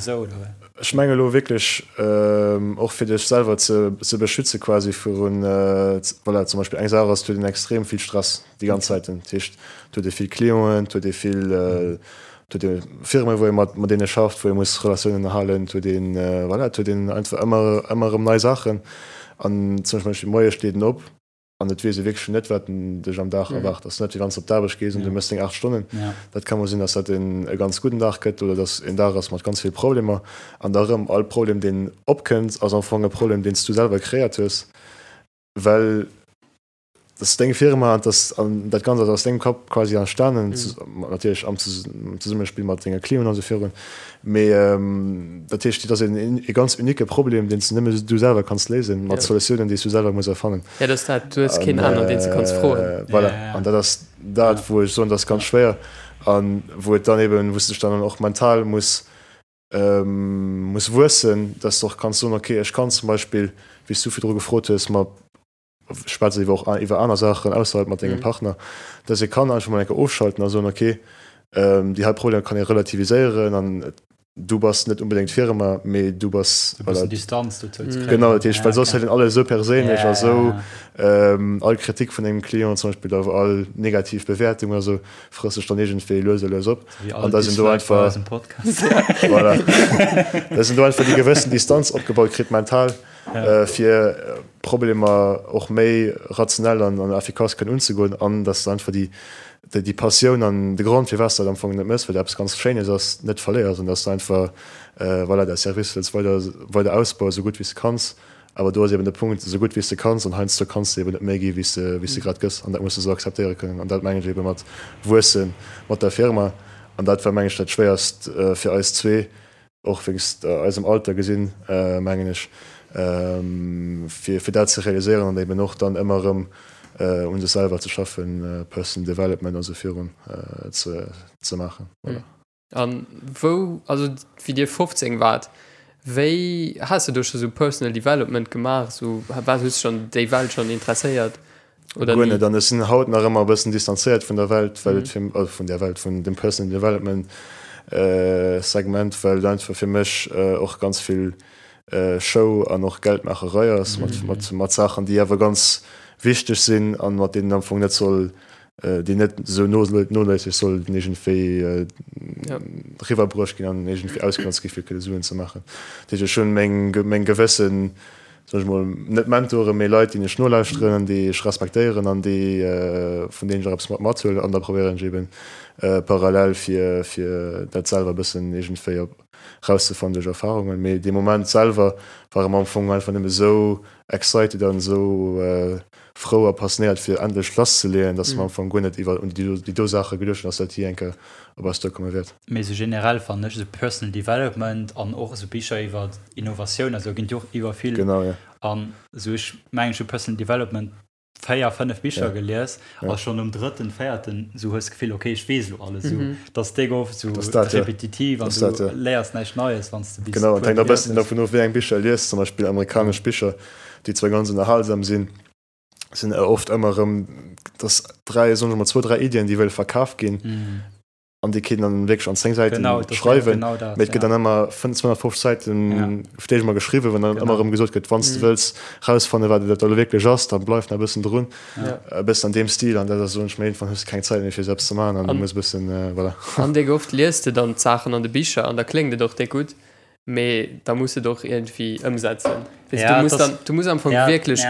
Ech menge lo wierklech och fir dech selwer ze ze beschütze quasi virun voilà zum Beispill eng Saach ass, et huet een extrem vill Stress déi ganz Zäiten. Dat heescht et huet ee vill Clienten, et huet ee vill et huet ee Firme wou ee mat mat deene schafft, wou ee muss Relatiounen ënnerhalen, et huet een voilà et huet een einfach ëmmer ëmmer erëm nei Saachen an zum Beispill moies steet een op, An et weess ee wierklech net, wat dech am Dag erwaart. Ass net wéi wann s de op d'Aarbecht gees an du méchs deng 8 Stonnen. Dat ka mol sinn, dass dat en e ganz gudden Dag gëtt oder dass en Dag ass mat ganz vill Problemer. An da erëm, all Problem, deen opkënnt, ass am Fong e Problem, deen s du selwer kreéiert hues, well dat ass deng Firma an dat an dat Ganzt ass aus dengem Kapp quasi entstanen, natierlech am Zesummespill mat denge Clienten an esou virun. Mee dat heescht, et ass een e ganz unique Problem, deen s de nëmme du selwer kanns léisen, mat Solutiounen, déi s du selwer muss erfannen. Ja, dat ass dat, du hues keen aneren, deen s de kanns froen. Voilà, an dat ass dat, wou ech soen, dat ass ganz schwéier an wou et dann eben, wou s de dech dann och mental muss muss wuessen, dass de och kanns soen, okay, ech kann zum Beispill, wéi s du virdru gefrot hues, mat schwätze iwwer och iwwer aner Saachen ausserhalb mat dengem Partner, dass ee kann einfach mol eng Kéier ofschalten a soen, okay, déi hei Problemer kann ee relativiséieren an du bass net unbedéngt d'Firma, mee du bass E bëssen Distanz dozou ze kréien. Genau, dat heescht, well soss hätt een alles esou perséinlech a sou all Kritik vun engem Client zum Beispill oder all negativ Bewäertung oder sou frësst sech dann iergendwéi lues a lues op. An dass een do einfach, voilà, dass een do einfach déi gewëssen Distanz opgebaut kritt mental. fir Problemer och méi rationell an effikass kënnen unzegoen an dass de einfach déi, déi Passioun an de Grond, firwat s de dat am Fong net méchs, well dat eppes ganz Schéines ass, net verléiers an dass de einfach, voilà, däi Service wëlls weider, weider ausbauen, esou gutt wéi s de kanns. Awer do ass eben de Punkt, esou gutt wéi s de kanns an heiansdo kanns de eben net méi gi wéi s de, wéi s de grad gëss an dat muss de esou akzeptéiere kënnen an dat mengen ech ebe mat wuesse mat der Firma an dat war, mengen ech, dat Schwéierst fir eis zwee, och wéinst eisem Alter gesinn, mengen ech, fir fir dat ze realiséieren an eben och dann ëmmer erëm un sech selwer ze schaffen, Personal Development a sou virun ze ze maachen. Voilà. An wou, also wéi Dir 15 waart, wéi has de do scho sou Personal Development gemaach, sou war, hues de schonn déi Welt schonn interesséiert? Oder Guer net. An ech sinn haut nach ëmmer e bëssen distanzéiert vun der Welt, well et fir, also vun där Welt, vun dem Personal Development Segment, well et einfach fir mech och ganz vill Show an och Geldmaacherei ass mat, mat, mat Saachen, déi awer ganz wichteg sinn an mat deenen am Fong net soll, déi net esou noléisseg sollten iergendwéi riwwerbruecht ginn an iergendwéi ausgenotzt gi fir kënne Suen ze maachen. Dat heescht, ech hunn meng, meng gewëssen soen ech mol, net Mentoren, mee Leit, déi ech nolauschteren an déi ech respektéieren an déi, vun deenen ech och eppes mat mathuelen. An da probéieren ech eben parallel fir, fir dat selwer e bëssen iergendwéi op rauszefannen duerch Erfahrungen. Mee dee Moment selwer ware mer am Fong einfach nëmme esou excited an esou frou a passionéiert fir endlech lasszeleeën, dass mer am Fong guer net iwwer un déi do Saache geduecht hunn, dass dat jee eng Kéier op eis duerkomme wäert. Mee esou generell fannen ech esou Personal Development an och esou Bicher iwwer Innovatioun a sou ginn et jo och iwwer vill. Genau, jo. An esou ech mengen ech hu Personal Development 4, 5 Bicher gelies a schonn nom drëtten, véierten esou hues d'Gefill ok ech weess elo alles esou. Et ass déck oft esou repetitiv an du léiers näischt Neies wann s de bis Genau, et hänkt och e bëssen dovun of wéi eng Bicher e liest. Zum Beispill amerikanesch Bicher, déi zwar ganz ënnerhalsam sinn, sinn oft ëmmer erëm dass 3, soen ech mol, zwou, 3 Iddien déi wëlle verkaf ginn. An déi kéint dann wierklech an 10 Säiten genau, schreiwen. Genau dat, Mee et gëtt ja. dann ëmmer 250 Säiten ja. fir d'éischt geschriwwen, wann dann ëmmer erëm gesot gëtt, wann s de mhm. wëlls rausfanne wat dat elo wierklech ass, dann bleif nach e bëssen drun. Ja. E bëssen an deem Stil an dat ass soen ech mir irgendwann hues de keng Zäit méi fir selbst ze maachen an du muss e bëssen äh, voilà. An déck oft liest de dann d'Saachen an de Bicher an da kléngt et och déck gutt. Mee da muss et och iergendwéi ëmsetzen. Weess du, muss dann, du muss am Fong wierklech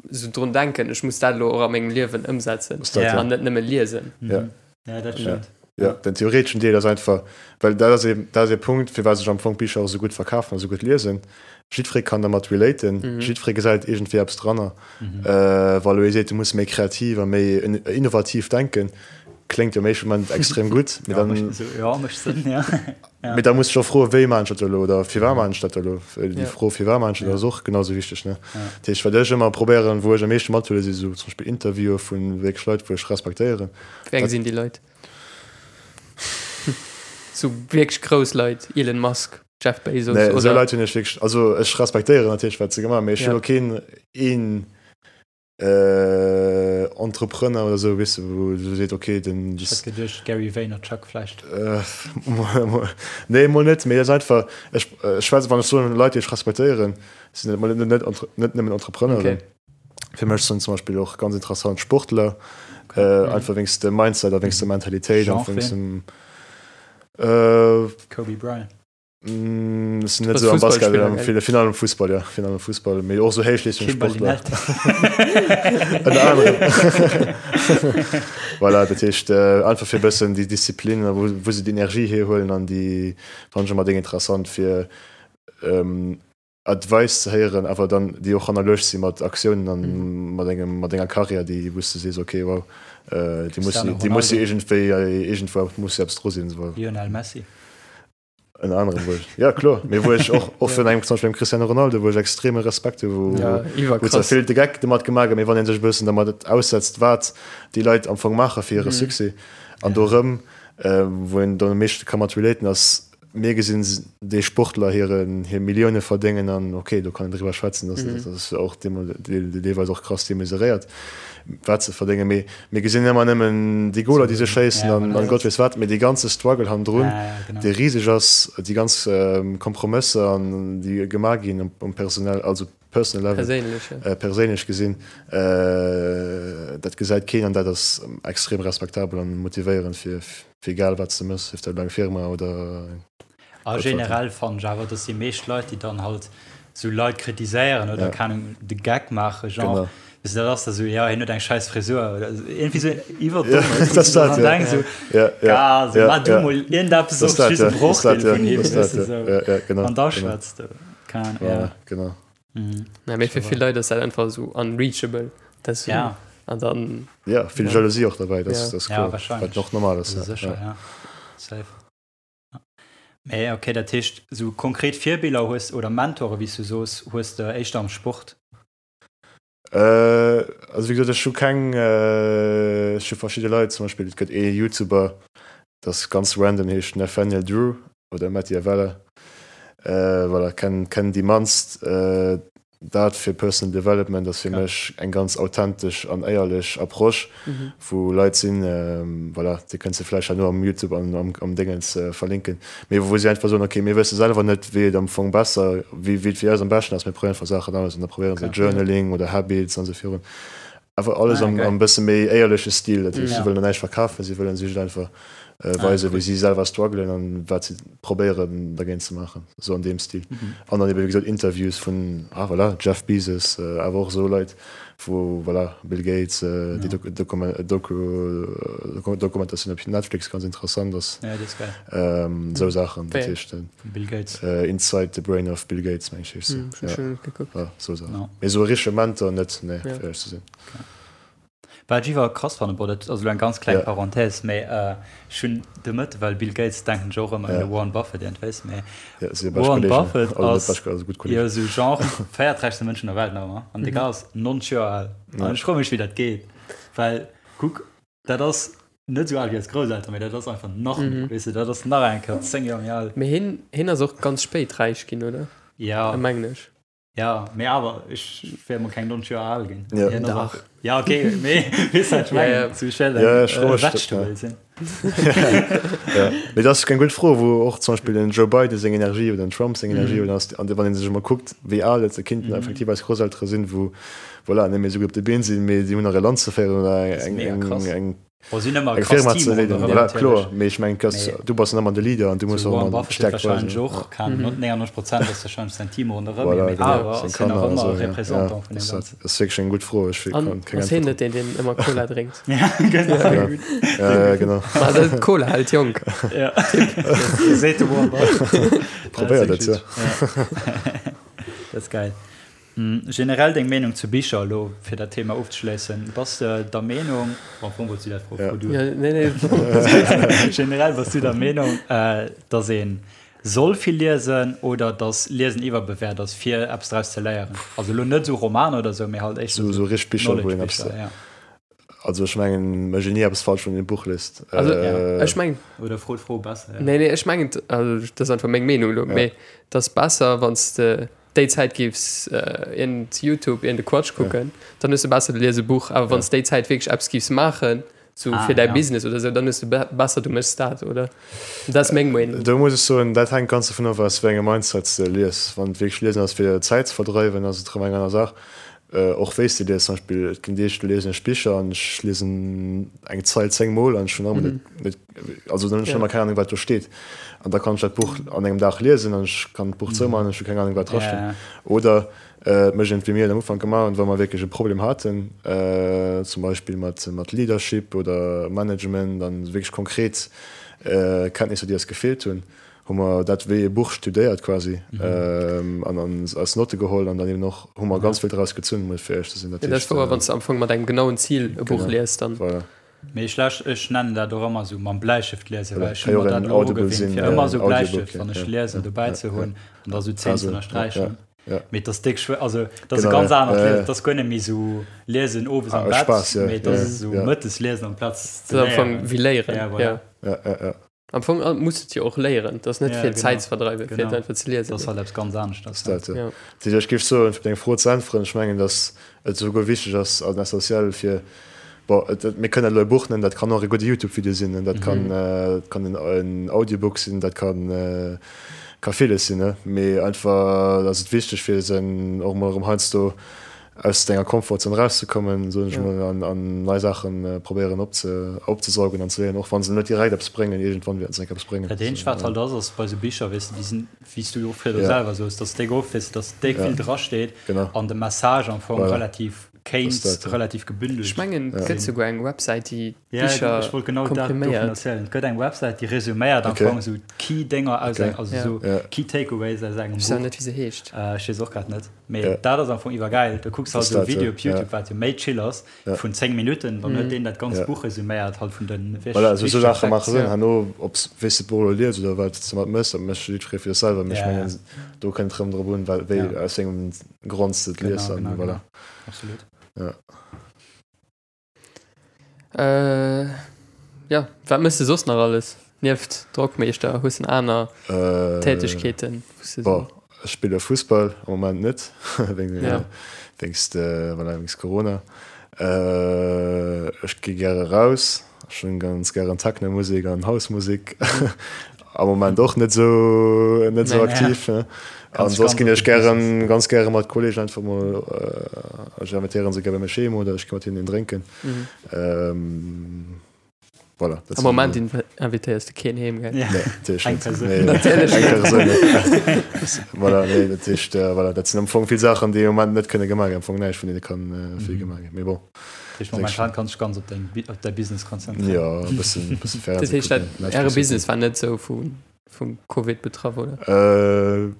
esou drun denken, ech muss dat elo och a mengem Liewen ëmsetzen an net nëmme liesen. Ja, dat stëmmt. Ja, den theoreteschen Deel ass einfach, well dat ass ee, dat ass ee Punkt, firwat sech am Fong d'Bicher och esou gutt verkafen a esou gutt liesen. Jiddweree kann dermat relaten, jiddweree gesäit iergendwéi eppes dranner. Wa elo ee seet, du muss méi kreativ a méi innovativ denken, kléngt jo am éischte Moment extrem gutt, mee dann. Jo, mécht Sënn, ja. Mee da muss ech och froen, wéi maachen ech dat elo oder firwat maachen ech dat elo? Déi Fro, firwat maachen ech dat, ass och genau esou wichteg, ne? Dat heescht, wat ech ëmmer probéieren, wou ech am meeschte mathuelen, si sou zum Beispill Interviewe vu wierklech Leit, wou ech respektéieren. Wéi eng sinn déi Leit? Sou wierklech grouss Leit, Elon Musk, Jeff Bezos oder? Nee, esou Leit hunn ech wierklech, also ech respektéieren natierlech, wat se gemaach hunn, mee ech hunn elo keen een Entrepreneur oder sou, weess de, wou du seet, okay, den. Ech hätt geduecht Gary Vaynerchuk vläicht. Nee, mol net, mee et ass einfach, ech schwätze, wann ech soen Leit, déi ech respektéieren, sinn et mol net, net nëmmen Entrepreneuren. Fir mech sinn zum Beispill och ganz interessant Sportler, einfach wéinst dem Mindset a wéinst der Mentalitéit an wéinst dem. Kobe Bryant. Mm, sinn net sou am Basket, am vill virun allem Fussball, ja, virun allem Fussball, mee och sou Héichleeschtungssportler. Ënner anerem. Voilà, dat heescht einfach fir e bëssen déi Disziplin a wou wou se déi Energie hierhuelen an déi fannen ech ëmmer déng interessant fir Advice ze héieren, awer dann déi och hannerluecht si mat Aktiounen an mat engem mat enger Karriär, déi wou s de sees, okay, wow, déi muss déi muss jo iergendwéi iergendwou muss jo eppes dru sinn. Lionel Messi. Ënner anerem wou ech, ja kloer, mee wou ech och och vun engem zum Beispill dem Cristiano Ronaldo, wou ech extreme Respekt hu, wou Ja, wou zwar iwwerkrass. vill de Geck domat gemaach gëtt, mee wann ee sech e bëssen dermat aussetzt, wat déi Leit am Fong maache fir hire Succès an do erëm, wou een dann am meeschte ka mat relaten, ass, mir gesinn déi Sportler hiren hir Millioune verdéngen an okay, do kann een driwwer schwätzen, dass dat ass och deelweis och krass demesuréiert, wat se verdéngen, mee Mir gesinn ëmmer nëmmen déi Goler, déi se schéissen an an Gott weess wat, mee dee ganze Struggle hannendrun, dee riseg ass, déi ganz Kompromësser an déi gemaach ginn um personell, also personal level, perséinlech gesinn, dat gesäit keen an dat ass extrem respektabel an motivéierend fir egal wat s de méchs, sief dat elo eng Firma oder. A generell fannen ech awer, dass déi meescht Leit, déi dann halt sou Leit kritiséieren oder keng Ahnung de Geck maachen, genre, weess de, dat ass da sou, jo, hien huet eng schäiss Frisur oder sou, iergendwéi sou iwwerdomm, weess de, wou du dann denks sou, Gars, sou, maach du mol iergendeppes och just e Brochdeel vun him, weess de, sou, an da schwätz du, keng Ahnung, ja. Genau. Ja, mee fir vill Leit ass dat einfach sou unreachable, dat ass sou, an dann. Ja, vill Jalousie och derbäi, dat ass kloer, wat och normal ass. Ja, sécher, ja, safe. Mee okay, dat heescht sou konkret Virbiller hues oder Mentore wéi s du soos, hues de éischter am Sport? Äh, also wéi gesot, ech hu keng, ech hu verschidde Leit, zum Beispill et gëtt ee Youtuber, dat ass ganz random, heescht Nathaniel Drew oder Matti Avella, voilà, kennen kennen déi mannst. Dat fir Personal Development ass fir mech eng ganz authentesch an éierlech Approche, wou Leit sinn, voilà, déi kënns de vläicht herno am Youtube an am Déngens verlinken, mee wou si einfach soen, ok, mir wësse selwer net, wéi et am Fong besser, wéi et fir eis am beschten ass, mir probéieren einfach Saachen aus an da probéiere se Journaling oder Habits an esou virun. Einfach alles am am bësse méi éierleche Stil. Dat heescht, si wëllen der näischt verkafen, si wëllen sech einfach weisen, wéi si selwer struggelen an wat si probéieren dergéint ze maachen, esou an deem Stil. An dann ebe wéi gesot Interviews vun, ah voilà, Jeff Bezos, awer och esou Leit wou, voilà, Bill Gates, déi Doku Doku Dokumentatioun op Netflix ganz interessant ass. Esou Saachen, dat heescht Inside the Brain of Bill Gates, meng ech heescht se. Ja, esou Saachen. Mee esou e richtege Mentor net, nee, fir éierlech ze sinn. Wat ech iwwer krass fannen, bon dat ass elo eng ganz kleng Parenthèse, mee ech hunn de Mëtte, well Bill Gates denken ech och ëmmer un de Warren Buffett iergendwéis, mee Warren Buffett ass jo esou genre véierträichste Mënsch vun der Welt nach ëmmer an de Gars ass 90 Joer al an ech froe mech wéi dat geet, well kuck dat ass net esou al wéi eis Grousselteren, mee dat ass einfach nach méi, weess de, dat ass nach eng Kéier 10 Joer méi al. Mee hien, hien ass och ganz spéit räich ginn, oder? Jo. Mengen ech. Ja, mee awer, ech wär mol keng 90 Joer al ginn. Ja. Hien ass Dach. och- Ja, okay, mee weess wat ech Ja, ja. mengen? Zu schnell Ja, eng ech froe äh, mech dat, Vegetable ja. sinn. Ja. Mee dat ass eng gutt Fro, wou och zum Beispill den Joe Biden seng Energie oder den Trump seng Energie oder ass, an wann ee sech emol kuckt, wéi al et se kinnten effektiv eis Grousseltere sinn, wou, voilà, net méi esou gutt op de Been sinn, mee si hunn nach e Land ze féieren oder Dat ass eng, mega eng, krass. eng. Bon, si hunn ëmmer e Eng krass Firma Team ze leeden, ronderëm voilà, natierlech. kloer, mee ech mengen, dass Mee du bass dann ëmmer de Leader an du muss sou och Warren ëmmer Buffett huet d'Stäerkt weisen. warscheinlech och, keng Ahnung, 99 Prozent ass warscheinlech säin Team ronderëm hien, Voilà, mee genau, awer seng ass hien nach Kanner an ëmmer esou, ja, ja, Représentant vun dat deem ass dat. Ganzen. Dat ass wierklech eng gutt Fro, ech An kann keng ass hien Äntwert net deen, deen ëmmer Cola drénkt? Ja, genau. drop. Ja, ja, genau. Ma dat Cola hält jonk. Ja. Seet de Warren Buffett. Probéiert et, ja. Ja. Dat ass gäil. Generell deng Meenung zu Bicher elo, fir dat Thema ofzeschléissen. Bass de der Meenung, bon, am Fong wolls du dat Fro fro du. Ja, nee, nee. Generell bass du der Meenung, dass ee soll vill liesen oder dass Liesen iwwerbewäert ass, fir eppes draus ze léieren? Also elo net esou Romaner oder esou, mee halt éischter Esou richteg Bicher, wou een eppes. Knowledge-Bicher, ja. Also ech mengen, mécht een ni eppes falsch, wann een e Buch liest. Also ech mengen. Oder fro d'Fro besser, ja. Nee, nee, ech mengen, also dat ass einfach meng Meenung elo, mee et ass besser, wann s de déi Zäit giffs iergend Youtube, iergend e Quatsch kucken, dann hues de besser, du lies e Buch. Awer wann s déi Zäit wierklech eppes giffs maachen, sou fir däi Business oder sou, dann hues de besser, du méchs dat, oder? Dat ass meng Meenung. Do muss ech soen, dat hänkt ganz dovun of, aus wéi engem Mindset s de lies. Wann et wierklech liesen ass, fir Zäit ze verdreiwen, ass et erëm eng aner Saach. Och wéi s de lies, zum Beispill, et ginn Deeg, do liesen ech Bicher an ech liesen eng Zeil 10 Mol an ech hunn nach ëmmer net, net, also dann hunn ech nach ëmmer keng Ahnung, wat do steet. An da kann ech dat Buch an engem Dag liesen an ech kann d'Buch zoumaachen an ech hu keng Ahnung, wat drasteet. Oder et mécht een et wéi mir et am Ufank gemaach hunn, wa mer wierklech e Problem haten, zum Beispill mat, mat Leadership oder Management an wierklech konkret Kenntnisser, déi eis gefeelt hunn, hu mer dat wéi e Buch studéiert quasi an an eis Notte geholl an dann eben och hu mer ganz vill draus gezunn, muss fir éierlech ze sinn. Dat ass wouer, wann s de am Fong mat engem genauen Zil e Buch liest, dann. Voilà. Mee ech läsch, ech nennen dat och ëmmer esou mam Bläistëft liesen, well Voilà, ech ka hu jo mer och dat en elo Audible ugewinnt, sinn, fir ëmmer esou Audiobook, Bläistëft, ja, wann ech ja, liesen, ja, dobäi ze ja, hunn an da esou d'Zeen ze Also, ja, ënnersträichen. ja. Mee et ass déck schwéier, also et ass e Genau, ganz ja, anert ja, Liesen, ja. et ass guer net méi esou liesen owes am Ah, Bett, Spaass, ja, mee et ja, ass esou ja. mëttes liesen amplaz ze Dat ass am Fong léieren. wéi léieren, Ja, voilà. ja. Ja, ja, ja. Am Fong muss et jo och léieren, dat ass net Ja, fir genau. Zäit ze verdreiwen, fir et Genau. einfach ze liesen. Dat ass halt eppes ganz aneschters. Dat, ja. Ja. Dat heescht, ech géif soen, fir op deng Fro ze äntweren, ech mengen, datt et esouguer wichteg ass an essentiell fir, bon, et, et, mir kënnen dat elo e Buch nennen, dat kann och e gudde YouTube-Video sinn, dat kann, dat kann en, en Audiobook sinn, dat kann, ka villes sinn, ne? Mee einfach ass et wichteg, fir sen och emol erëm heiansdo aus denger Komfortzon erauszekommen, soen ech emol, an, an nei Saachen probéieren opze, opzesaugen an ze léieren, och wa se net direkt eppes bréngen, iergendwann wäerten se enk eppes bréngen. Dat eenzegt wat halt ass, ass bei sou Bicher, weess de, déi sinn, wéi s du och virdu Ja. selwer soos, dass déck oft, weess de, dass déck Ja. vill drasteet Genau. an de Message am Fong Voilà. relativ kéint Das dat, ja. relativ gebündelt Ech mengen, et gëtt sinn. souguer eng Websäit, déi Ja, d'Bicher ech wollt genau dat dovun kompriméiert. erzielen. Et gëtt eng Websäit, déi resuméiert am Okay. Fong sou d'Key-Dénger aus Okay. eng, also Ja. sou Ja. Key Takeaways aus engem Ech weess awer Buch. net, wéi se heescht. Äh, ech weess och grad net. Mee Ja. dat ass am Fong iwwergäil. Du kucks halt Das esou e dat, Video ja. op YouTube, Ja. wat jo méi chill ass, Ja. vun 10 Minutten, dann huet deen dat ganzt Ja. Buch resuméiert halt vun den Voilà, esou wichtege Saache Facts. maache Sënn. Ja. Herno, ob s, wéi s de d'Buch elo lies oder wat s de domat méchs, dat mécht jiddweree fir sech selwer. Mee ech Ja, mengen, ja. do kënnt et rëm drop un, well, wéi, Ja. aus wéi engem Grond s de et lies Genau, an genau, voilà. genau. Absolut. Ja. Äh, ja, wat mëss de soss nach alles? Nieft Drockmeeschter, hues de aner Äh, Tätegkeeten? wou s de Bon, so- ech spille Fussball, am Moment net, wéinst, Ja. wéinst, äh, voilà, wéinst Corona. Äh, ech gi gäre raus, ech hunn ganz gären Technomusek an Housemusek. Am Moment och net esou, net esou Nee. aktiv. Ne? An Ganz soss ganz ginn op ech de gären, Business. ganz gäre mat Kolleegen einfach mol, äh, ech invitéieren se gär bei mech heem oder ech gi mat hinnen een drénken. Mhm. Ähm, voilà, dat Am sinn Moment invitéiers de keen heem, gell? Ja. Nee, natierlech Eng net. Persoun. Nee, Natierlech eng Persoun net. Voilà, nee, dat heescht, äh, voilà, dat sinn am Fong vill Saachen, déi am Moment net kënne gemaach ginn. Am Fong näischt vun deene kann äh, vill Mhm. gemaach ginn. Mee bon, Dat heescht, momentan kanns du dech ganz op deng, op däi Business konzentréieren. ja, e bëssen, e bësse Dat Fernseh heescht, dat, kucken, äre Netflix Business war net sou vu, vum Covid betraff, oder? Äh,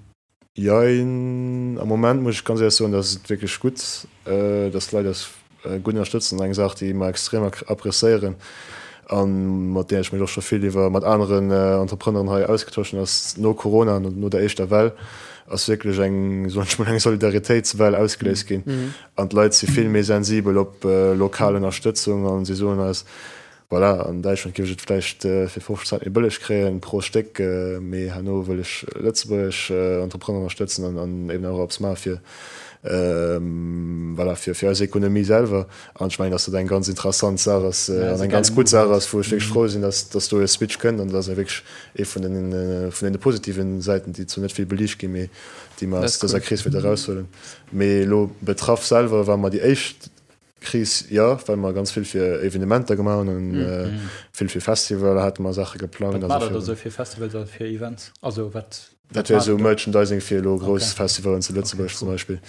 Jein, am Moment muss ech ganz éierlech soen, dass et wierklech gutt, dass d'Leit eis gutt ënnerstëtzen. Eng Saach, déi mer extrem appreciéieren a mat där ech mech och scho vill iwwer mat aneren Entrepreneuren hei ausgetosch hunn, ass no Corona, no der éischter Well, ass wierklech eng, soen ech mol, eng Solidaritéitswell ausgeléist ginn an d'Leit si vill méi sensibel op lokal Ënnerstëtzung a si soen eis, Voilà, an Däitschland géif ech et vläicht fir 50 Cent méi bëlleg kréien pro Stéck, mee herno wëll ech lëtzebuergesch Entrepreneur ënnerstëtzen an an eben och eppes maache fir, voilà, fir fir eis Ekonomie selwer. An ech mengen, datt dat eng ganz interessant Saach ass an eng ganz gutt Saach ass, wou ech wierklech frou sinn, datt datt do e Switch kënnt an dat ass wierklech ee vun den vun deene positiven Säiten, déi zwar net vill beliicht ginn, mee déi mer aus dëser Kris wäerte eraushuelen. Mee elo betraff selwer war mer déi éischt. Kris, jo, well mer ganz vill fir Evenementer gemaach hunn an vill fir Festivaler hate mer Saache geplangt. Wat maacht der do sou fir Festivals a fir Events? Also wat? Dat wär sou Merchandising fir elo grouss Festivalen zu Lëtzebuerg zum Beispill,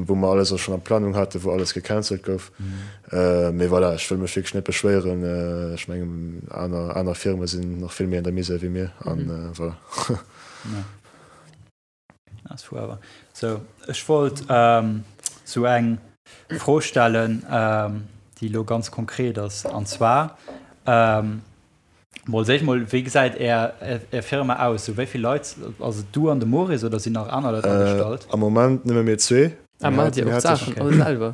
wou mer alles och schonn an Planung haten, wou alles gecancelt gouf. Mee voilà, ech wëll mech wierklech net beschwéieren. Ech mengen, aner, aner Firme sinn nach vill méi an der Misär wéi mir an voilà. Ass fou awer. Sou, ech wollt sou eng Fro stellen, déi elo ganz konkret ass. An zwar, mol als éischt mol, wéi gesäit är är Firma aus? Sou wéi vill Leit, ass et du an de Maurice oder sinn nach aner Leit agestallt? Am Moment nëmme mir zwee. Ah, maacht Dir och d'Saachen all selwer?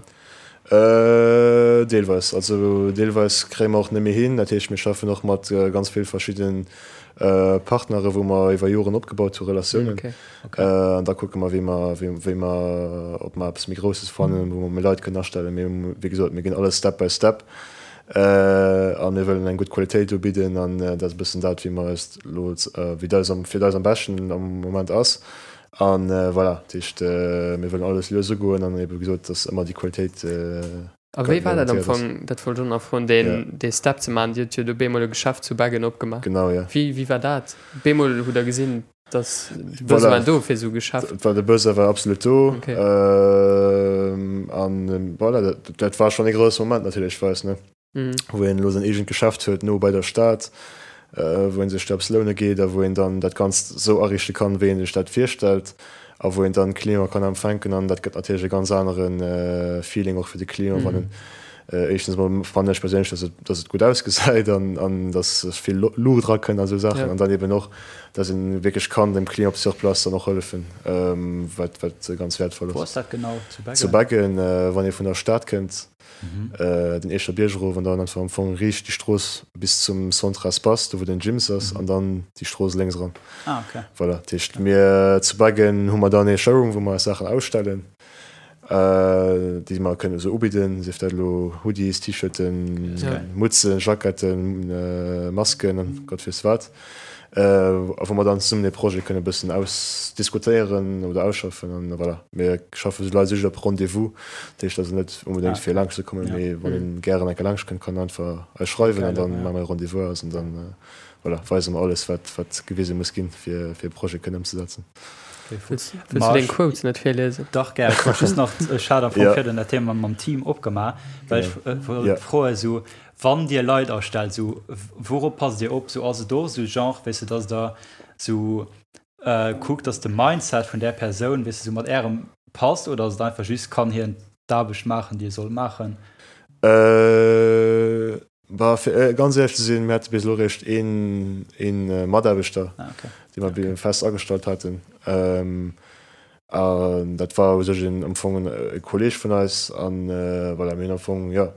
Deelweis. Also deelweis kréie mer och net méi hin. Dat heescht, mir schaffen och mat ganz vill verschidde Partnere wou mer iwwer Joren opgebaut hu Relatiounen. An da kucke mer, wéi mer, wéi mer, ob mer eppes méi Grousses fannen, wou mer méi Leit kënnen astellen. Mee wéi gesot, mir ginn alles Step by Step a mir wëllen eng gutt Qualitéit ubidden an dat ass e bëssen dat, wéi mer eis elo, wéi dat eis fir eis am beschten am Moment ass. An voilà, dat heescht, mir wëllen alles lues ugoen an ebe gesot, dass ëmmer déi Qualitéit A wéi war dat am Fong, dat wollt ech och nach froen, deen, dee Step ze maachen? Dir hutt jo do bemol e Geschäft zu Beggen opgemaach. Genau, jo. Wéi, wéi war dat? Bemol hutt Der gesinn, dass de Besoin voilà. do fir esou e Geschäft. War de Besoin war absolut do. Okay. An voilà, dat, dat war schonn e grousse Moment natierlech fir eis, ne? wou een elo säin eegent Geschäft huet, no bei der Stad, wou ee sech do eppes loune geet a wou een dann dat Ganzt esou ariichte kann, wéi ee sech dat virstellt a wou een dann d'Clienten kann empfänken. An dat gëtt natierlech e ganz anere Feeling och fir de Client, wann en éischtens emol fannen ech perséinlech, dass et, dass et gutt ausgesäit an, an dass vill Luucht erakënnt a sou Saachen an dann eben och, dass een wierklech kann dem Client op sur place dann och hëllefen, wat, wat ganz wäertvoll ass. Wou ass dat genau? Zu Beggen? Zu Beggen, wann ee vun der Stad kënnt. Den Eecher Bierg erof an dann einfach am Fong riicht déi Strooss bis zum Centre Espace, do wou den Gyms ass, an dann déi Strooss lénks eran. Ah, okay. Voilà, dat heescht mir zu Beggen hu mer dann ee Showroom, wou mer eis Saachen ausstellen, déi mer kënnen esou ubidden, sief dat elo Hoodies, T-Shirten, Mutzen, Jacketten, Masken an Gott weess wat. A wou mer dann zesummen dee Projet kënne bëssen ausdiskutéieren oder ausschaffen. An voilà, mir schaffe sou Leit just op Rendez-vous. Dat heescht also net onbedéngt fir laanscht ze kommen, mee wann een gären eng Kéier laanscht kënnt, kann en einfach eis schreiwen an dann maache mer e Rendez-vous aus an dann voilà, weise mer alles, wat wat gewise muss ginn, fir fir e Projet kënnen ëmzesetzen. Wëlls du deng Quotes net virliesen? Dach gär. Ech wollt just nach, ech hat am Fong virun dat Thema mam Team opgemaach, well ech wollt froen, esou Wann Dir Leit astellt, sou wourop passt Dir op? Sou ass et och sou Genre, weess de, dass Der sou kuckt, dass de Mindset vun där Persoun, weess de, sou mat Ärem passt oder ass et einfach just, kann hien d'Aarbecht maachen, déi e soll maachen? Bah, fir ganz éierlech ze sinn, mir hate bis elo eréischt een, een Mataarbechter, dee mer fest agestallt haten. An dat war u sech een am Fong e Kolleeg vun eis. An voilà, mir hunn am Fong, jo,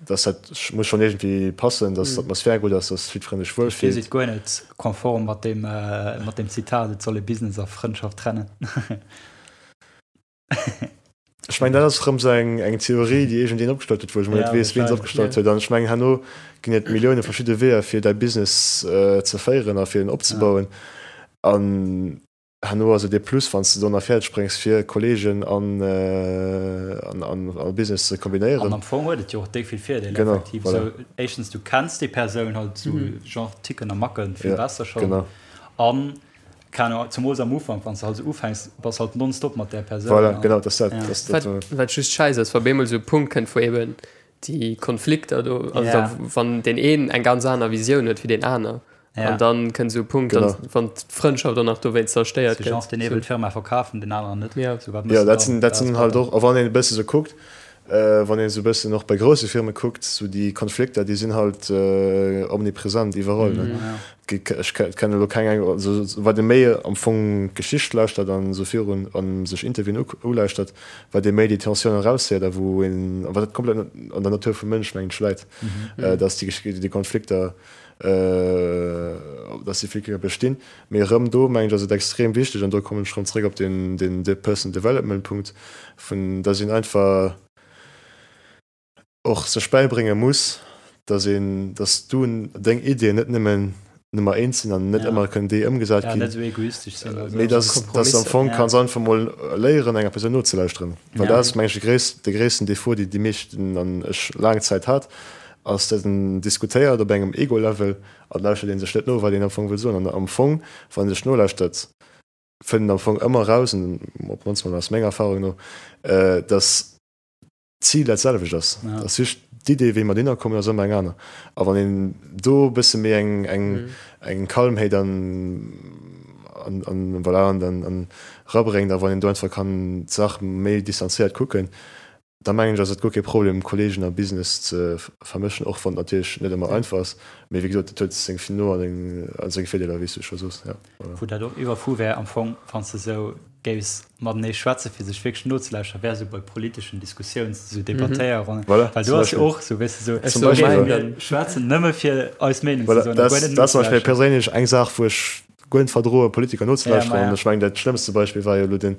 dass dat muss schonn iergendwéi passen, dass d'Atmosphär gutt ass, dass jiddweree sech wuel fillt. Dir sidd guer net konform mat deem, mat deem Zitat, et soll ee Business a Frëndschaft trennen. Ech mengen, dat ass erëm esou eng, eng Theorie, déi iergendeen opgestallt huet, wou ech emol net weess, wien se opgestallt huet. An ech mengen, herno ginn et Millioune verschidde Weeër, fir däi Business ze féieren a fir en opzebauen. An Herno ass et ee Plus, wann s de do nach fäerdeg bréngs, fir Kolleegen an a Business ze kombinéieren. An am Fong huet et jo och déck vill Virdeeler, effektiv. Genau, voilà. Sou, éischtens, du kenns déi Persoun halt sou, genre Ticken a Macken vill besser schonn. Genau. An, keng Ahnung, zemools am Ufank, wann s de halt sou ufänks, bass halt nonstop mat där Persoun. Voilà, genau, dat ass dat. Dat ass dat. Wat just scheiss ass, wa bemol sou e Punkt kënnt, wou eben déi Konflikter do, also da, wann deen een eng ganz aner Visioun huet wéi deen aner, Ja. An dann kënnt esou e Punkt, Genau. dann, wann d'Frëndschaft och nach dowéinst zerstéiert Sou genre, gëtt. deen ee wëll d'Firma verkafen, deen aneren net. Ja. Sou, wat méchs Ja, de dat dann? sinn, dat Dat sinn ass halt batter. och, a wann een e bësse sou kuckt, wann een esou e bëssen och bei grousse Firme kuckt, sou déi Konflikter, déi sinn halt omnipresent iwwerall, ne. Ja. Gi, ech kennen elo keng eng, also wat ee méi am Fong d'Geschicht lauschtert an esou virun an sech Interviewen ulauschtert, wat ee méi déi Tensioun eraushéiert a wou een, a wat dat komplett an der Natur vum Mënsch, mengen ech, läit, dass déi, déi Konflikter, dass déi Flickere bestinn. Mee erëm do, mengen ech, ass et extrem wichteg, an do kommen ech erëm zréck op deen, deen Personal Development Punkt, vun dass een einfach och sech bäibrénge muss, dass een, dass du deng Iddien net nëmmen. Nummer eent sinn an net ëmmer kënnen déi ëmgesat ginn. Net esou egoistesch sinn. Mee dass dass am Fong kanns einfach mol léieren enger Persoun nozelauschteren. Well dat ass meng ech de gréisst de gréissten Defaut déi déi meeschten an ech laang Zäit hat, ass dass en diskutéiert op engem Ego-Level an lauschtert een sech net no wat een am Fong wëll soen. An am Fong wann ee sech nolauschtert fënnt een am Fong ëmmer eraus, an op d'mannst mol aus menger Erfahrung no, dass d'Zil dat selwecht ass. Ja. Ass just d'Idee, wéi mer dohinner kommen, ass ëmmer eng aner. A wann een do e bësse méi eng, eng, mm. eng Calmheet an, an, an, voilà, an, an, an rabréngt, a wann een do einfach kann d'Saach méi distanzéiert kucken, da mengen ech, ass et guer kee Problem, Kollegen a Business ze vermëschen, och wann et natierlech net ëmmer einfach ass. Mee wéi gesot, et huet seng No an seng Virdeeler, wéi s du scho soos. Ja, voilà. Wou dat och iwwerfu wär am Fong, wann s de esou géifs matenee schwätzen, fir sech wierklech nozelauschteren, wär esou bei politeschen Diskussiouns, esou Debattéierronnen. Voilà, Well do ass jo och esou, weess de, esou, Zum Beispill, mir schwätzen nëmme fir eis Meenung ze Voilà, soen a dat guer net ass zum Beispill nozelauschteren. perséinlech eng Saach, wou ech guer net verdroen, Politiker Ja, nozelauschteren. ma An ja. ech mengen, dat schlëmmste Beispill war jo elo den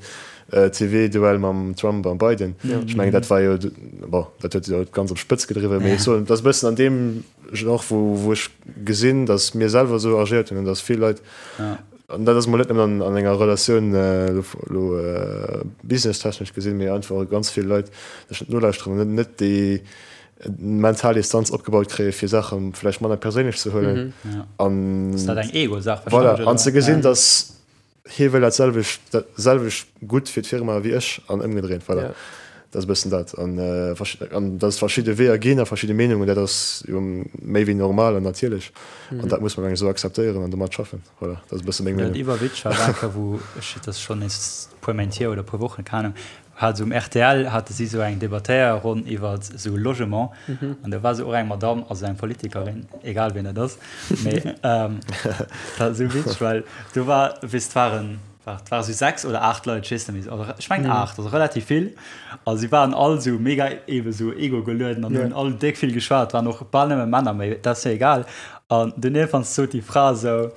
TV-Duell mam Trump a Biden. Ech mengen, dat war jo, bon, dat huet jo d'ganz op d'Spëtz gedriwwen, mee ech soen, dat ass e bëssen an deem Genre, wou, wou ech gesinn, datt mir selwer esou agéiert hunn an datt vill Leit, Ja. An dat ass mol net nëmmen an enger Relatioun elo businesstechnesch gesinn, mee einfach ganz vill Leit sech net nolauschteren an net déi mental Distanz opgebaut kréie fir Saache vläicht manner perséinlech ze huelen. An Ass dat eng Ego-Saach voilà, an ze gesinn, datt hie wëll dat selwecht, dat selwecht gutt fir d'Firma wéi ech an ëmgedréint. Voilà. Dat ass e bëssen dat. An an datt et verschidde Weeër ginn a verschidde Meenungen, dat ass jo méi wéi normal an natierlech. An dat muss man eng esou akzeptéieren an domat schaffen. Voilà, dat ass e bësse meng Meenung. Dat iwwerwitzeg war eng Kéier, wou ech, dat ass schonn nees e puer Méint hier oder e puer Wochen, keng Ahnung, hat esou um rtl hate si esou eng Debattéierronn iwwer esou Logement. An do war esou och eng Madamm, also eng Politikerin, egal wien dat ass, mee dat war esou witzeg, well do war, weess, et waren, Et ware sou 6 oder 8 Leit, ech weess net méi, oder ech mengen 8, also relativ vill. A si waren all sou mega ebe sou ego-gelueden an hunn all déck vill geschwat. Et waren och bal nëmme Männer, mee dat ass jo egal. An dunn iergendwann sot déi Fra sou,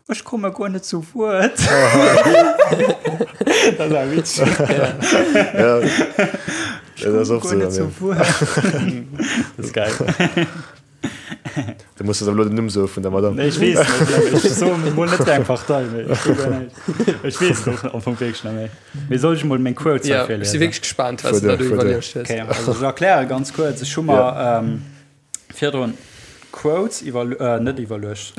Ech komme guer net zu Wuert. Dat war witzeg. Ja, Ech dat ass komme oft guer sou net dann, zu ja. Wuert. Dat ass geil. Du muss elo den Numm soe vun der Madame. Nee, ech weess net. Ech soe mol net wéi eng Partei, mee ech weess guer näischt. Ech weess et och am Fong wierklech net méi. Mee soll ech mol meng Quotes hei Ja, ech si virliesen? wierklech gespaant, wat s du Fuer da duer, do fuer duer. iwwerluecht hues. Okay, also ech erkläre ganz kuerz. Ech hu mer virdrun Quotes iwwer, net iwwerluecht,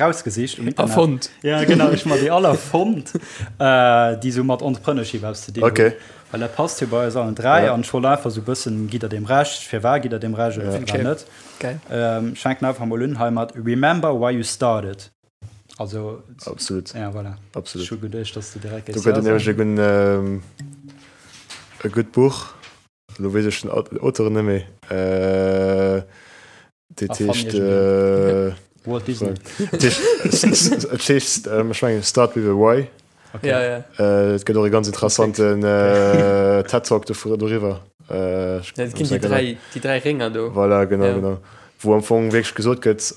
rausgesicht um Internet. Erfonnt. Ja, genau, ech hu mer déi all erfonnt, déi sou mat Entrepreneurship eppes ze dinn hunn. Okay. Well dat passt jo bei eis allen 3 Ja. an ech wollt einfach sou bëssen, gitt der deem Recht, firwat gitt der deem Recht oder Ja. firwat Okay. net. Geil. Ähm, ech fänken einfach mol un hei mat Remember why you started. Also, Absolut. ja, voilà. Absolut. Ech hu geduecht, dass du direkt Do géifs gëtt ja et nämlech e soen. gudden, ähm, e gutt Buch, elo weess ech den Auteur net méi, äh, Dat heescht, äh, Walt Disney. Et heescht, et heescht, ähm, ech mengen Start with a Why. Okay. Ja, ja. Äh, et gëtt och e ganz interessanten äh, TED Talk doriwwer. Äh, Ja, et ginn déi dräi, déi dräi Rénger do. Voilà, genau, Ja. genau. Wou am Fong wierklech gesot gëtt,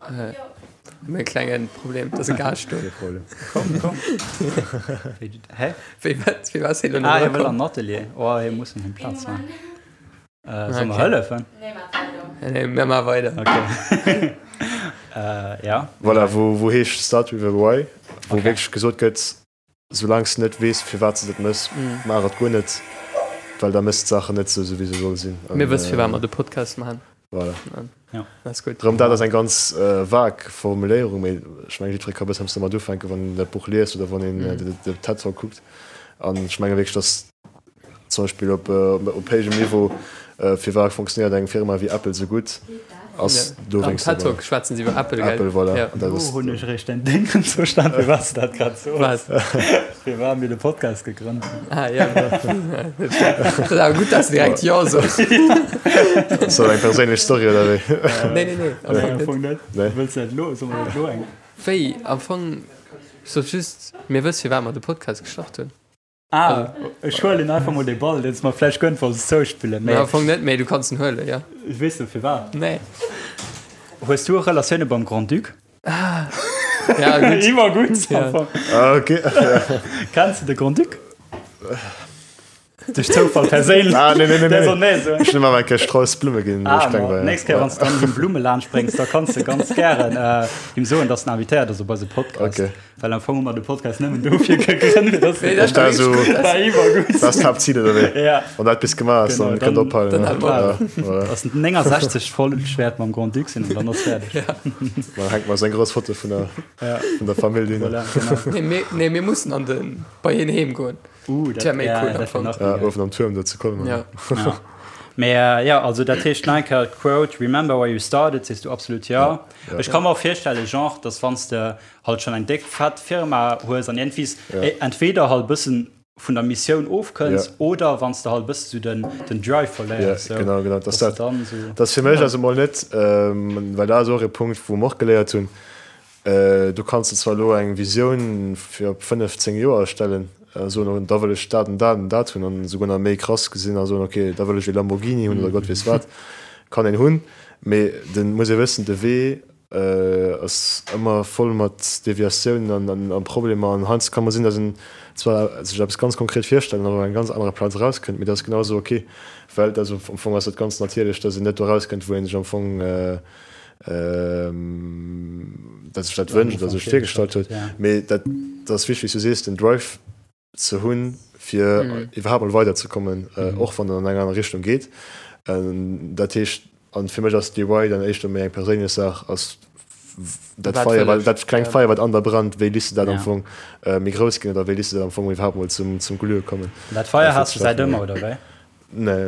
Äh, mir e klengen Problem, dat ass e Gaascht do. Kee Problem. Komm, komm. Hä? Wéi wat, wéi was hie lo Ah, nach hie wëll erakomm? an den Atelier. Oh, hie muss him Plaz maachen. Äh, soll mer Okay. hëllefen? Nee, maach weider. Nee, mir maache weider. Okay. äh, ja. Voilà, wou, wou heescht Start with a Why, wou Okay. wierklech gesot gëtt, soulaang s de net weess, firwat s de dat mëss, Mm. maach et guer net, well da mëss d'Saachen net sou, sou wéi se solle sinn. An, Mir wësse firwat äh, mer de Podcast maachen. Voilà. Ja. Dat ass gutt. Rëm dat ass eng ganz äh, vag Formuléierung, mee ech mengen, jiddweree ka bëssen eppes domat ufänken, wann een dat Buch liest oder wann een mm. de, de TED Talk kuckt. An ech menge wierklech, dass Zum Beispill op op héijem Niveau, firwat funktionéiert eng Firma wéi Apple sou gutt, ass dowéinst Am TED Talk schwätzen se iwwer Apple, gell? Apple, voilà. Ja. An dat Lo ass hunn ech eréischt däin Déngen verstan, firwat s de dat grad soos. Wat? Firwat mir de Podcast gegrënnt hunn. Ah, ja. Dat ass awer gutt, dass de direkt Jo soos. Ass dat eng perséinlech Story oder wéi? Nee, nee, nee, am Nee, Fong am net. Fong net. Nee. Wëlls de dat elo? Solle mer dat elo eng? Wéi? Am Fong, ech sot just, mir wësse firwat mer de Podcast gestart hunn. Ah, ech huelen einfach mol de Ball, deen s mer vläicht gënnt wolls zouspillen. Mee am Fong net, mee du kanns en huelen, jo. Weess du firwat? Nee. Hues du Relatioune beim Grand-Duc? Ah, ja, gutt. Iwwer gutt, Ja. am Fong. Ah, okay. Kenns du de Grand-Duc? Duerch Zoufall perséinlech. Ah, nee, nee, nee, Der nee. soll nee soen. Ech hunn him awer eng Kéier Strauss Blumme ginn, wou Ah, ech kleng ma war, ja. nächst Kéier, wann s du dann him Blumme laanscht bréngs, da kanns de ganz gären äh, him soen, dass en invitéiert ass op eise Podcast. Okay. Well am Fong hu mer de Podcast nëmmen dofir gegrënnt, fir dass Nee, dat Dat ass so, war iwwergutt. dat ass d'Haaptzil, oder wéi? Ja. Wann dat bis gemaach ass, Genau, dann kënnt dann- ophalen. dann ne? hale mer Ja, voilà. Ass 69 Folg wäert mam Grand-Duc sinn an dann ass fäerdeg. Ja. Dann hänkt mer seng grouss Foto vun der, Ja. vun der Famill hin. Voilà, genau. Nee, mir, nee, mir mussen an den, bei hien heem goen. Uh, dat wär méi ja, cool am dat wär Fong. nach Ja, méi geil. uewen am Tuerm do zu Colmar. Ja. Ja. Mee äh, ja, also dat heescht nach eng Kéier d'Quote, Remember where you started, sees du absolut ja. Ja. Ech ka mer och virstellen, genre, dass wann s de halt schonn eng déck fett Firma hues an iergendwies Ja. entweder halt bëssen vun der Missioun ofkënns Ja. oder wann s de halt bëssen sou den, den Drive verléiers, Ja, sou, genau, genau. Dass dass de dat, dann sou. dat ass fir mech also mol net, ähm, well dat ass och e Punkt, wou mer och geléiert hunn, Du kanns der zwar elo eng Visioun fir op 5, 10 Joer erstellen a soen, da wëll ech dat an dat an dat hunn an esouguer nach méi krass gesinn a soen, ok, da wëll ech ee Lamborghini hunn oder Gott weess wat. Kann een hunn, mee de muss ee wëssen, de Wee ass ëmmer voll mat Deviatiounen an a Problemer an heiansdo ka mol sinn, datt een zwar sech eppes ganz konkret virstellt an op enger ganz anerer Plaz erauskënnt, mee dat ass genau esou ok, well dat ass am Fong ass dat ganz natierlech, datt een net do erauskënnt, wou ee sech am Fong dat sech dat wënscht oder sech virgestallt huet. Mee dat ass wichteg, wéi s du sees, den Drive ze hunn, fir iwwerhaapt mol weiderzekommen, och wann en an eng aner Richtung geet. Dat heescht, an fir mech ass DIY dann éischter méi eng perséinlech Saach, ass dat Feier, wat, dat klengt Feier, wat an der brennt, wéi liss de dat am Fong méi grouss ginn oder wéi liss de dat am Fong iwwerhaapt mol zum Glühe kommen. Dat Feier has du säit ëmmer, oder wéi? Nee,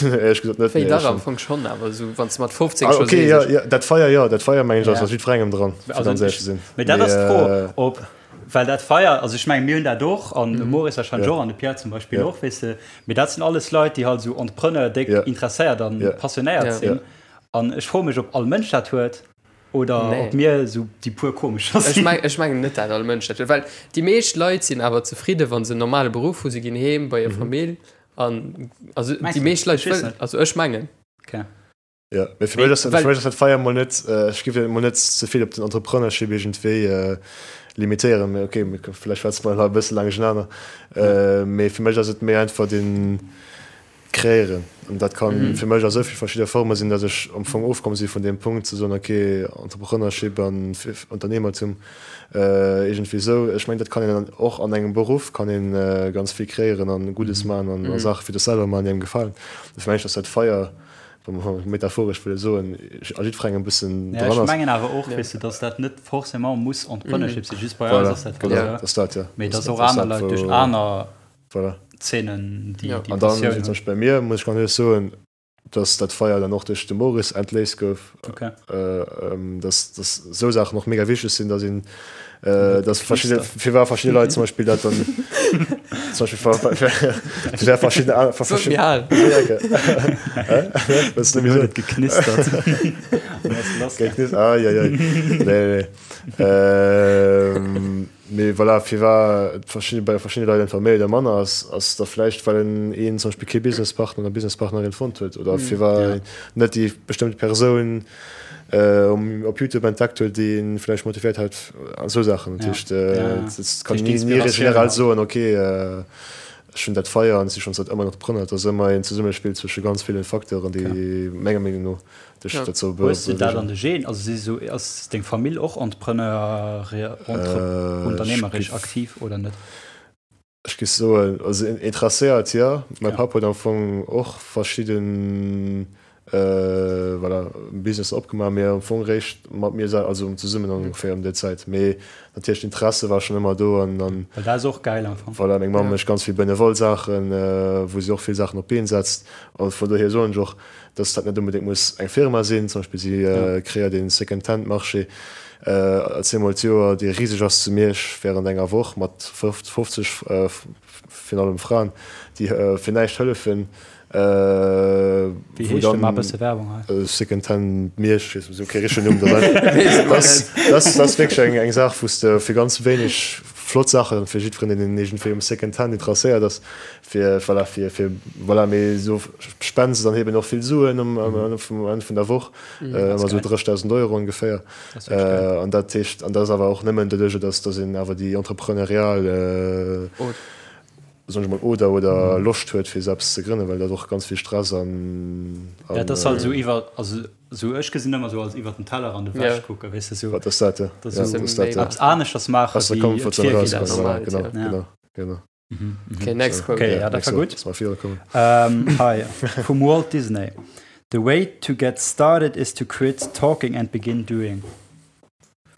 éierlech gesot net. Wéi dach am Fong schonn, awer esou wann s de mat 15 ah, scho okay, sees, ja, ech- ja, dat Feier jo, dat Feier mengen ech ass Ja. ass jiddwerengem dran, fir Also ganz éierlech ech, ze sinn. mee dat ass Mee, d'Fro, äh, ob, well dat Feier, also ech mengen mir hunn dat och an de Maurice warscheinlech Ja. och an de Pierre zum Beispill Ja. och, weess de, mee dat sinn alles Leit, déi halt esou Entrepreneur déck Ja. interesséiert an Ja. passionéiert Ja. sinn. Ja. An ech froe mech, ob all Mënsch dat huet oder Nee. ob mir esou déi puer komescher Ech sinn. meng, ech mengen net, dat all Mënsch dat huet, well déi meescht Leit sinn awer zefridde wa se en normale Beruff hu, se ginn heem bei hir Famill An also Meinst déi du? meescht Leit Ech weess wëllen, net. also ech mengen. Okay. Ja, mee fir mech ass Well- fir mech ass dat Feier mol net, ech géif dat mol net ze vill op den Entrepreneurship iergendwéi limitéieren. Mee okay, mir vläicht schwätze mer nach e bësse laang duerchenaner. Mee fir mech ass et méi einfach den Kreéieren. An dat kann fir mech a sou vill verschidde Forme sinn, datt ech am Fong ofkomm si vun deem Punkt ze soen, okay, Entrepreneurship an Unternehmertum, Iergendwéi esou. Ech mengen, dat kann een och an engem Beruff kann een ganz vill kreéieren an Guddes maachen an Saache fir dech selwer maachen, déi engem gefalen. Dofir mengen ech, dass dat Feier, wa mer metaphoresch wëlle soen, a jiddwerengem e bëssen Ja, dran ech ass. mengen awer och, weess de, dass dat net forcément muss Entrepreneurship sinn, just bei eis Voilà, ass dat halt genau, esou. dat ass dat, ja. Mee Dat dass och ass aner dat, Leit duerch wou, aner voilà. Zeenen déi Ja. déi An dann, Passioun wéi zum hunn. Beispill bei mir, muss ech ganz éierlech soen, dass dat Feier dann och duerch de Maurice entléist gouf, okay. äh, dass, dass esou Saachen och mega wichteg sinn, dass een äh, dass verschiedene fir war verschiedene Leit zum Beispill dat dann zum Beispill fir verschiedene verschiedene geknistert ah, ja, ja. Nee, nee. Ähm, Mee voilà, firwat et verschidde, bei verschiddene Leit einfach méi oder manner ass, ass da vläicht, well en een zum Beispill kee Businesspartner oder Businesspartnerin fonnt huet oder firwat Ja. een net déi bestëmmt Persoun um, op YouTube entdeckt huet, déi een vläicht motivéiert hat an esou Saachen. Dat Ja. heescht, Ja, ja. et kann Duerch een ni d'Inspiratioun generell halt. soen, okay, ech hunn dat Feier an ech si schonn säit ëmmer Entrepreneur. Et ass ëmmer een Zesummespill zwësche ganz villen Facteuren, déi menger Meenung no dech Ja. dozou Hues du dat bewegen. an de Genen? Also si sou, ass deng Famill och Entrepreneur, entre, Äh, ech unternehmerisch giff, aktiv oder net? ech giff soen, also interesséiert jo. Mäi Ja. Papp huet am Fong och verschidden, äh, voilà, Businesser opgemaach, mee am Fong réischt mat mir sel, also zesummen ongeféier ëm déi Zäit. Mee natierlech d'Interesse war schonn ëmmer do an an Well dat ass och gäil am Fong. voilà, meng Mamm Ja. mécht ganz vill benevol Saachen, wou si och vill Saachen op d'Been setzt. A vun dohier soen ech och, dass dat net onbedéngt muss eng Firma sinn. Zum Beispill si kreéiert een Second-Hand-Marché zweemol d'Joer, dee riseg ass zu Miersch während enger Woch mat 50, virun allem Fraen, déi fir näischt hëllefen. Wéi heescht de? Maach e bësse Werbung hei. Second-Hand Miersch, ech weess esou kee richtegen Numm. Dat ass wierklech eng Saach, wou s de fir ganz wéineg flott Saachen, fir jiddwereen, deen iergendwéi um Second-Hand interesséiert ass, fir voilà fir fir voilà mee esou spenden se dann eben och vill Suen um um Enn vun der Woch ëmmer esou 30.000 Euro ongeféier an dat heescht an dat ass awer och nëmmen doduerch dass dass een awer déi entrepreneurial. Soen ech mol, oder oder Loscht huet fir eppes ze grënnen, well dat och ganz vill Stress an an. Ja, dat ass halt esou iwwer, also esou ech gesinn ëmmer esou als iwwer den Tellerrand ewech kucken, weess de, esou. Wat ass dat, ja. Dat ass esou eppes aneschters maachen, Aus der wéi et Comfortzone virginn erauskommen, ass. voilà, genau, genau, genau. Okay, next quote. Okay, ja, dat war gutt. Lass mal virukommen. Hei, vum Walt Disney, The way to get started is to quit talking and begin doing.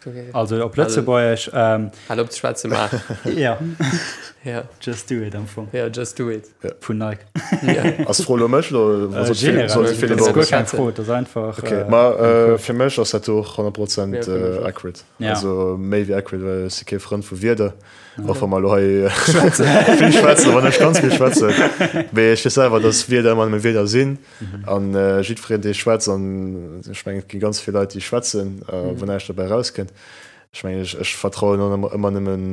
Okay. Also op Lëtzebuergesch. Ähm, Hal op ze schwätzen, maach. Ja. Ja. Just do it am Fong. Ja, just do it. Ja. Vun Nike. Ja. Ass d'Fro lo mech lo? Äh, generell. Soll se Dat ass guer keng Fro, dat ass einfach. Okay, äh, ma äh, fir mech ass dat och 100 Prozent Ja, fir mech äh, och. accurate. Ja. Also méi wéi accurate, well ech si kee Frënd vu Wierder. Och wa mer lo hei vill schwätzen, wann ech ganz vill schwätzen. Mee ech weess selwer, dass Wierder ëmmer nëmme Wierder sinn. An jiddwereen, dee schwätzt, an ech mengen, et gi ganz vill Leit, déi schwätzen, wou näischt dobäi erauskënnt. Ech mengen, ech, ech vertrauen och ëmmer, ëmmer nëmmen,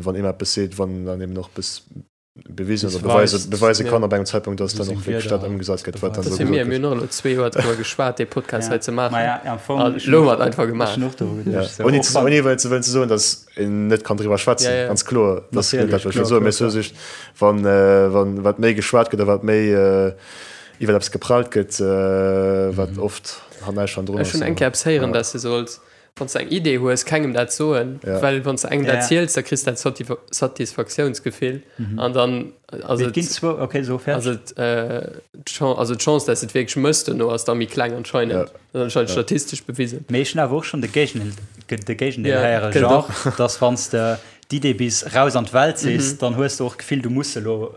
wann ee mer eppes seet, wann dann eben och eppes bewisen oder beweise, beweise kann op engem Zeitpunkt, dass dann och wierklech dat ëmgesat gëtt, wat dann Dat do si mir, gesot mir gëtt. hunn och elo zwee Joer driwwer geschwat, dee Podcast hei ze maachen. Ma ja, am Fong, An elo hu mer et einfach gemaach. Ech hunn och doru geduecht. Ja. Ouni ze, ouni wëllen ze wëllen ze soen, dass een net kann driwwer schwätzen, Ja, ja. ganz kloer, dat ass net dat, wat ech wëll Natierlech, soen. kloer, Mee ech kloer, soe just, wann, wann, wat méi geschwat gëtt a wat méi iwwer eppes geprallt gëtt, wat oft näischt hannendrun Ech ass. hunn eng Kéier eppes héieren, dass de solls Wann s de eng Idee hues, kengem dat soen, Ja. well wann s de engem dat Ja. ziels, da kriss de dat Satisfaktiounsgefill an dann ass Mee et et, ginn zwou, okay, so ass fäerdeg. et äh, d'Chan- also d'Chance, dass et wierklech mëss dono, ass da méi kleng anscheinend. Ja. Dat ass anscheinend Ja. statistesch bewisen. Mee ech hunn awer och schonn de Géigendeel, de Géigendeel Ja, héieren, gëtt genre, dass wann s de d'Idee bis raus an d'Welt sees, dann hues de och d'Gefill, du muss se elo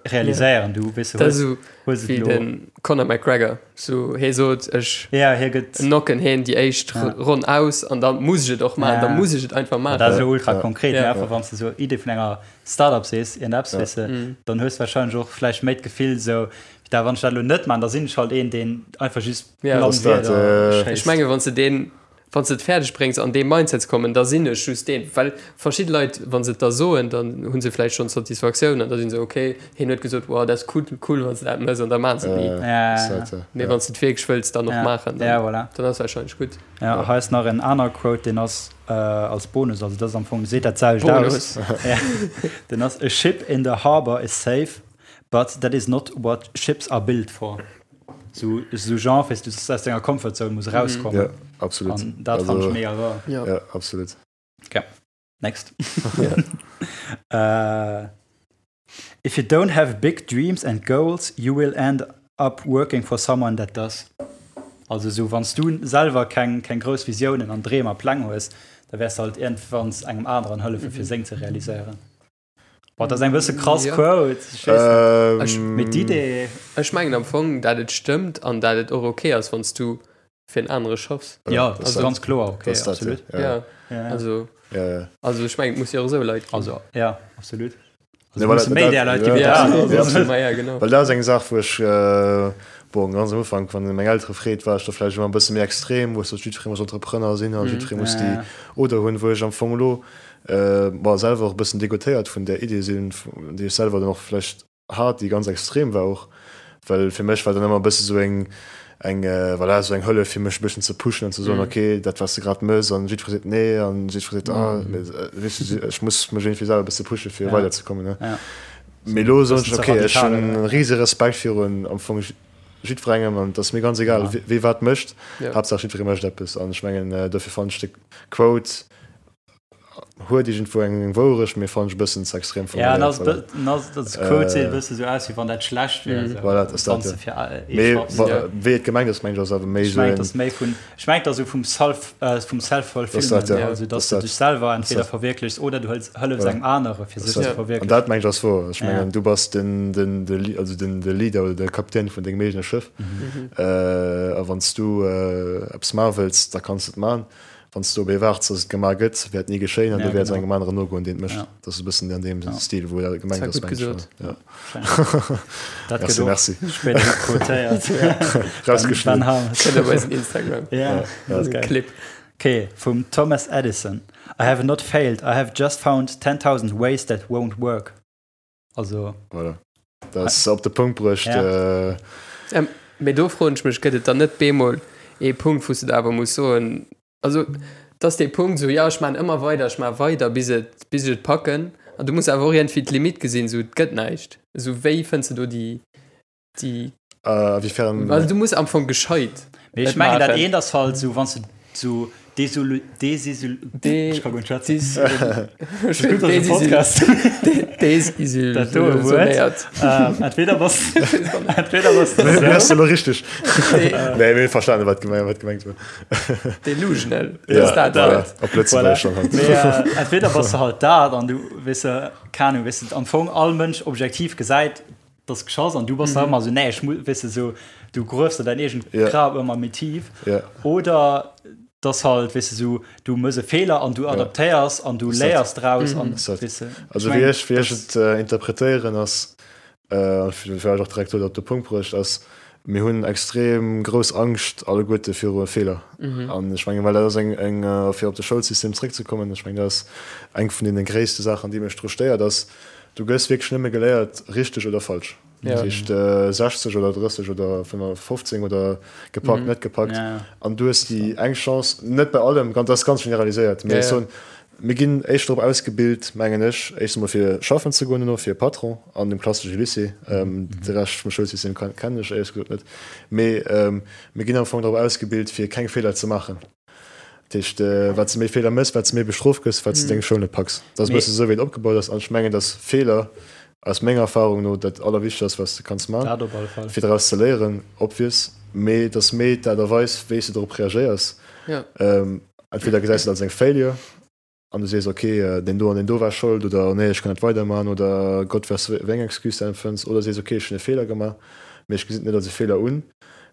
realiséieren, du weess Dat ass hues, esou hues et wéi elo. den Conor McGregor, sou hee sot, ech Ja, hie gëtt. knocken heen déi éischt Ja. Ronn aus an da muss ech et och maachen, Ja. da muss ech et einfach Dat ass maachen. elo ultra Ja. konkret, Ja. mee einfach wann s de sou Idee vun enger Startup sees, iergendepps, Ja. weess de, Mhm. dann hues du wahrscheinlech och vläicht méi d'Gefill sou, da wann ech dat elo net man, da sinn ech halt een, deen einfach just Ja. blann Ass dat, Wierder äh, schéisst. Ech menge wann s de deen, wann s de et fäerdeg bréngs an dee Mindset ze kommen, da sinn ech just deen, well verschidde Leit, wa se et da soen, dann hu se vläicht schonn d'Satisfaktioun an da si se ok, hien huet gesot, wow, dat ass cool, cool wann s de dat mëss an da maachen se et ni. Ja, Ass ja, dat, äh, Mee ja. wann s de et wierklech wëlls dann och Ja. maachen, Ja, dann, voilà. dann ass wahrscheinlech gutt. Ja, hei ass nach en aner Quote, deen ass äh, als Bonus, also dat ass am Fong, seet dat selwecht aus. Bonus. Ja. Den ass, A ship in the harbor is safe, but that is not what ships are built for. So, so Genre, weißt du, dass du aus denger Comfortzone muss rauskommen. Ja, absolut. An dat fand Also- ich mega wahr. Ja. Ja, absolut. Next. Ja. uh, if you don't have big dreams and goals, you will end up working for someone that does. Also so, wann du selwer keng, keng grouss Visiounen an Dreem a Pläng hues, da wäers du halt irgendwann engem anderen hëllefen, fir seng ze realiséieren. Boah, dat ass eng bësse krass Ja. Quote. Ich weess net. Ähm, Mee d'Idee, Ech mengen am Fong, dat et stëmmt an dat et och ok ass, wann s du fir en anere schaffs. ja, dat das ass ganz kloer, okay, das dat, absolut. Ja, Ja, Ja, ja. also, ja, ja. also ech mengen, et muss jo och esou Leit ginn. Also, ja, absolut. Also, Ne, musse voilà, méi dat- där Leit gi ja, wéi ja, dat. ja, Also, absolut. ma ja, genau. Well dat ass eng Saach, wou ech, äh, bon, ganz am Ufank, wann een meng Eltere freet, war ech da vläicht ëmmer e bësse méi extrem, wou ech sot, jiddweree muss Entrepreneur sinn a Mhm. jiddweree muss Ja, déi ja. Oder hunn, wou ech am Fong elo, äh, bon, selwer och e bëssen degoutéiert vun där Idee sinn, déi ech selwer dann och vläicht hat, déi ganz extrem war och, well fir mech war dann ëmmer e bësse sou eng, eng, voilà, sou eng Hëllef fir mech e bëssen ze pushen an ze soen, Mhm. okay, dat wat s de grad mëss an jiddweree seet nee an jiddweree seet, ah, mee, weess du, ech muss mech iergendwéi selwer e bësse pushe fir Ja. weiderzekommen, ne. Ja. Mee elo soen Bëssen ech, ze okay, ech radikal, hunn oder? e rise Respekt virun am Fong jiddwerengem an et ass mir ganz egal, Ja. wee wat mécht, Ja. Haaptsaach jiddweree mécht eppes an ech mengen, dofir fannen ech de Quote huet iergendwou eng Wourecht, mee fannen ech e bëssen ze extrem Ja, formuléiert. Voilà. an ass Quote seet e bësse sou aus, wéi wann dat schlecht wär. Mhm. Sou, Voilà, dat ass wann dat, s ja. de fir ee Mee schaffs. wa, Ja. wéi et gemengt ass, mengen ech, ass awer méi Ech sou mengen, en, et ass méi vun, ech mengen, et ass sou vum Self, äh, vum Dat ass Self-Fulfillment, dat, ja. also Dat dass ass du dat. dech selwer entweder dat. verwierklechs oder du hëls, hëllefs Voilà. engem anere fir Dat ass sech ze dat. An verwierklechen. dat mengen ech ass wouer. Ech Ja. mengen, du bass den, den, de, Li-, also den, de Leader oder de Kapitän vun dengem eegene Schëff. Mhm. Äh, a wann s du äh, eppes maache wëlls, da kanns du et maachen. Wann s du op ee waarts, dass et gemaach gëtt, wäert ni geschéien an Ja, du wäerts genau. engem aneren nogoen, deen et mécht. Ja. Dat ass e bëssen an deem Ja. Stil, wou dat gemengt Dat ass, war gutt mengen ech. gesot. Ja. Dat Merci, gëtt och merci. spéider quotéiert. Rausgeschnidden. Ben Harmes. Kënnt op eisen Instagram. Ja, Ja, dat ass geil. Clip. Okay, vum Thomas Edison. I have not failed, I have just found 10.000 ways that won't work. Also, Voilà. Dat ass op de Punkt bruecht. Ja. Äh, Ähm, mee do froen ech mech, gëtt et dann net bemol ee Punkt, wou s du da awer muss soen, also et ass dee Punkt esou, jo ech maachen ëmmer weider, ech maache weider bis et, bis ech et packen. An du muss awer och iergendwéi d'Limit gesinn, esou et gëtt näischt. Esou wéi fënns de do déi, déi. A wéifern? Also du muss am Fong gescheit. Mee ech mengen dat eent ass halt esou, wann s de esou desolu, desisul, ech ka guer net schwätzen. Gutt, dass e Podcast. Dat do e Wuert. Entweder bass, entweder bass de esou. Ass elo richteg. Nee, mir hunn verstanen, wat gemengt, wat gemengt war. Delusional. Ja, dat Wuert. Op Lëtzebuergesch schon halt. Mee entweder bass de halt dat an du, weess de, keng Ahnung, weess de, am Fong all Mënsch objektiv gesäit, dass geschoss an du bass da ëmmer esou, nee, ech muss, weess de, esou, du gruefs der däin eegent Grab ëmmer méi tief. Oder dass halt, weess de, esou, du mëss e Feeler an du adaptéiers an du léiers draus an, weess de. Also wéi ech, wéi ech et interpretéieren ass, an vläicht och direkt do op de Punkt bruecht, ass, mir hunn extrem grouss Angscht alleguerte viru Feeler. An ech mengen, well dat ass eng, eng, fir op de Schoulsystem zréckzekommen, ech mengen, dat ass eng vun deene gréisste Saachen, déi mech dru stéiert, ass, Du gëss wierklech nëmme geléiert, richteg oder falsch. Dat heescht 60 oder 30 oder 15 oder gepackt, net gepackt. An du hues déi eng Chance, net bei allem, dat ass ganz generaliséiert, mee ech soen, mir ginn éischter drop ausgebilt, mengen ech, éischt emol fir schaffen ze goen, duerno fir e Patron an dem klassesche Lycée. De Rescht vum Schoulsystem kennen ech éierlech gesot net. Mee mir ginn am Fong drop ausgebilt, fir keng Feeler ze maachen. Dat heescht, wat s de méi Feeler méchs, wat s de méi bestrooft gëss, wat s de deng Schoul net packs. Dat ass e bësse esou, wéi et opgebaut ass. An ech mengen, dass Feeler aus menger Erfahrung no dat Allerwichtegst ass, wat s de kanns maachen, fir draus ze léieren, obvious. Mee et ass méi d'Aart a Weis, wéi s de dorop reagéiers. Entweder gesäis de et als eng Failure an du sees, ok, deen do an deen do war Schold oder nee, ech kann net weiderman oder Gott weess wéi eng Excuse de empfënns oder sees, ok, ech hunn e Feeler gemaach, mee ech gesinn et net als e Feeler un,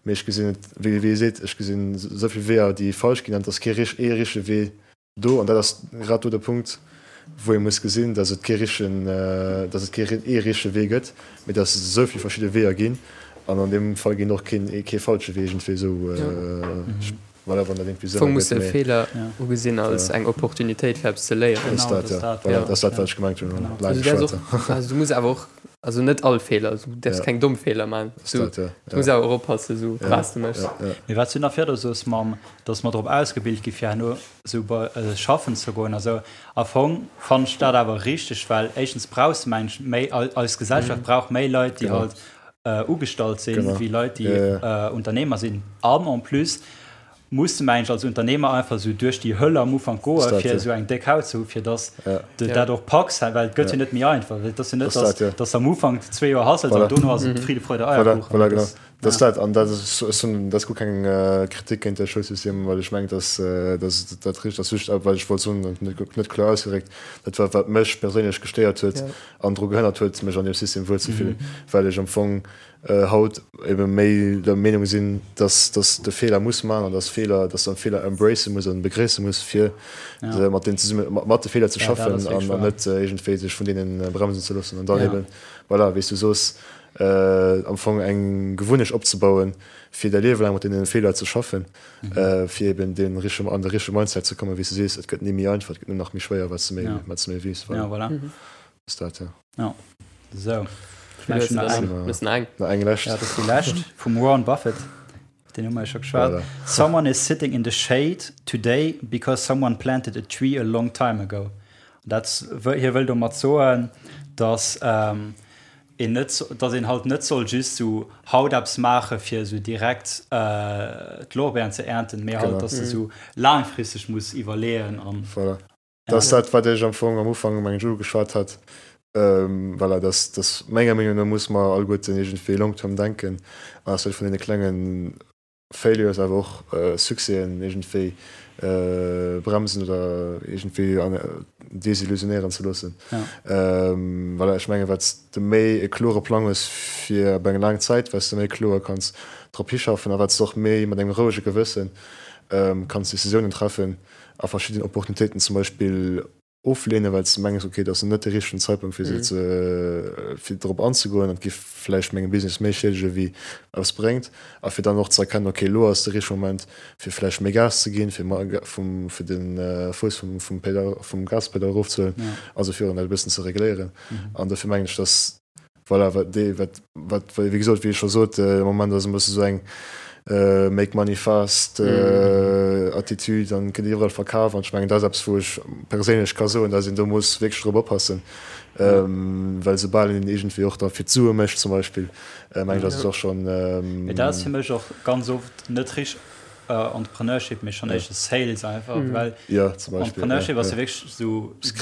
mee ech gesinn et, wéi wéi ee seet, ech gesinn esou vill Weeër, déi falsch ginn an et ass kee rich ee richtege Wee do an dat ass grad do de Punkt, wou ee muss gesinn, datt et kee richtegen, datt et kee ee richtege Wee gëtt, mee datt et esou vill verschidde Weeër ginn an an deem Fall ginn och keen kee falsche Wee iergendwéi esou. Voilà, wann dat irgendwie Sënn Fong muss de Feeler ugesinn als eng Opportunitéit fir eppes ze léieren. Genau, dat ass dat, ja. Dat ass dat, wat ech gemengt hunn. Genau. Also du däerfs och, also du muss awer och, also net all Feeler, du däerfs keng domm Feeler maachen. Du muss awer och oppassen, sou wat s de méchs. Mee wat s du nach virdu soos mam, dass mer drop ausgebilt gi fir herno sou bei schaffen ze goen a sou, am Fong fannen ech dat awer richteg, well éischtens brauchs de mengen ech méi, eis Gesellschaft brauch méi Leit, déi halt ugestallt sinn, wéi Leit, déi Unternehmer sinn. An en plus muss de mengen ech als Unternehmer einfach esou duerch déi Höll am Ufank goen, fir esou eng déck Haut ze hu fir dass de dat och packs, well et gëtt jo net méi einfach. Et ass jo net, dass dass am Ufank zwee Joer hustles an dono ass et Friede, Freude, Eierkuchen. Voilà, genau. Dat ass dat. An dat ass, ech hunn, dat ass guer keng Kritik géint de Schoulsystem, well ech mengen, dass dass dat richteg ass. Just, wat ech wollt soen, net net kloer ausgedréckt, dat war wat mech perséinlech gestéiert huet, an dru gehënnert huet, mech an deem System wuelzefillen, well ech am Fong haut ebe méi der Meenung sinn, dass dass de Feeler muss man an dass Feeler, dass de Feeler embracen muss an begréisse muss, fir mat deenen zesumme mat de Feeler ze schaffen an an net iergendwéi sech vun deenen bremsen ze loossen an dann eben, voilà, wéi s du soos, am Fong eng Gewunnecht opzebauen, fir däi Liewe laang mat deene Feeler ze schaffen. Fir eben dee richtege, an de richtege Mindset ze kommen, wéi s de sees, et gëtt ni méi einfach, et gëtt nëmmen nach méi schwéier, wat s de méi, wat s de méi weess. Voilà. Ja, voilà. Ass dat, ja. Ja. Sou. Ech mengen, nach eng. Nach eng. Nach eng lescht. Ja, dat ass déi lescht vum Warren Buffett. Deen hu mer jo scho geschwat. Voilà. Someone is sitting in the shade today because someone planted a tree a long time ago. Dat, hie wëll domat soen, dass een net, dass een halt net soll just sou haut eppes maache fir sou direkt d'Lorbeeren ze ernten, mee halt, dass de sou laangfristeg muss iwwerleeën an. Voilà. Dat ass dat, wat ech am Fong am Ufank, mengen ech, ugeschwat hat. Voilà, dass, dass menger Meenung no muss mer alleguerten iergendwéi long term denken an eis net vun deene klengen Failures, awer och Succèsen iergendwéi bremsen oder iergendwéi desillusionéieren ze loossen. Voilà, ech mengen, wat s de méi e klore Plang hues fir op eng laang Zäit, wat s de méi kloer kanns drop hischaffen a wat s de och méi mat engem rouege Gewësse kanns Decisiounen treffen a verschidden Opportunitéiten zum Beispill ofleenen, well s de mengs, ok, dat ass net de richtegen Zeitpunkt fir se ze fir drop anzegoen an et géif vläicht mengem Business méi schiedege wéi eppes bréngt a fir dann och ze erkennen, ok, elo ass de richtege Moment fir vläicht méi Gas ze ginn, fir vum fir de Fouss vum vum Pedal vum Gaspedal erofzehuelen, also fir dat e bëssen ze regléieren. An dofir mengen ech, datt voilà, wat dee wat wat wéi gesot, wéi ech scho sot, de Moment ass e bësse sou eng. Make money fast Attitude an gëtt iwwerall verkaf an ech mengen dat ass eppes wou ech perséinlech ka soen, dass een do muss wierklech drop oppassen, well soubal een iergendwéi och da fir d'Sue mécht zum Beispill, mengen ech ass et och schonn. Mee dat ass fir mech och ganz oft net richteg Entrepreneurship, mee schonn éischter Sales einfach, well Entrepreneurship ass jo wierklech esou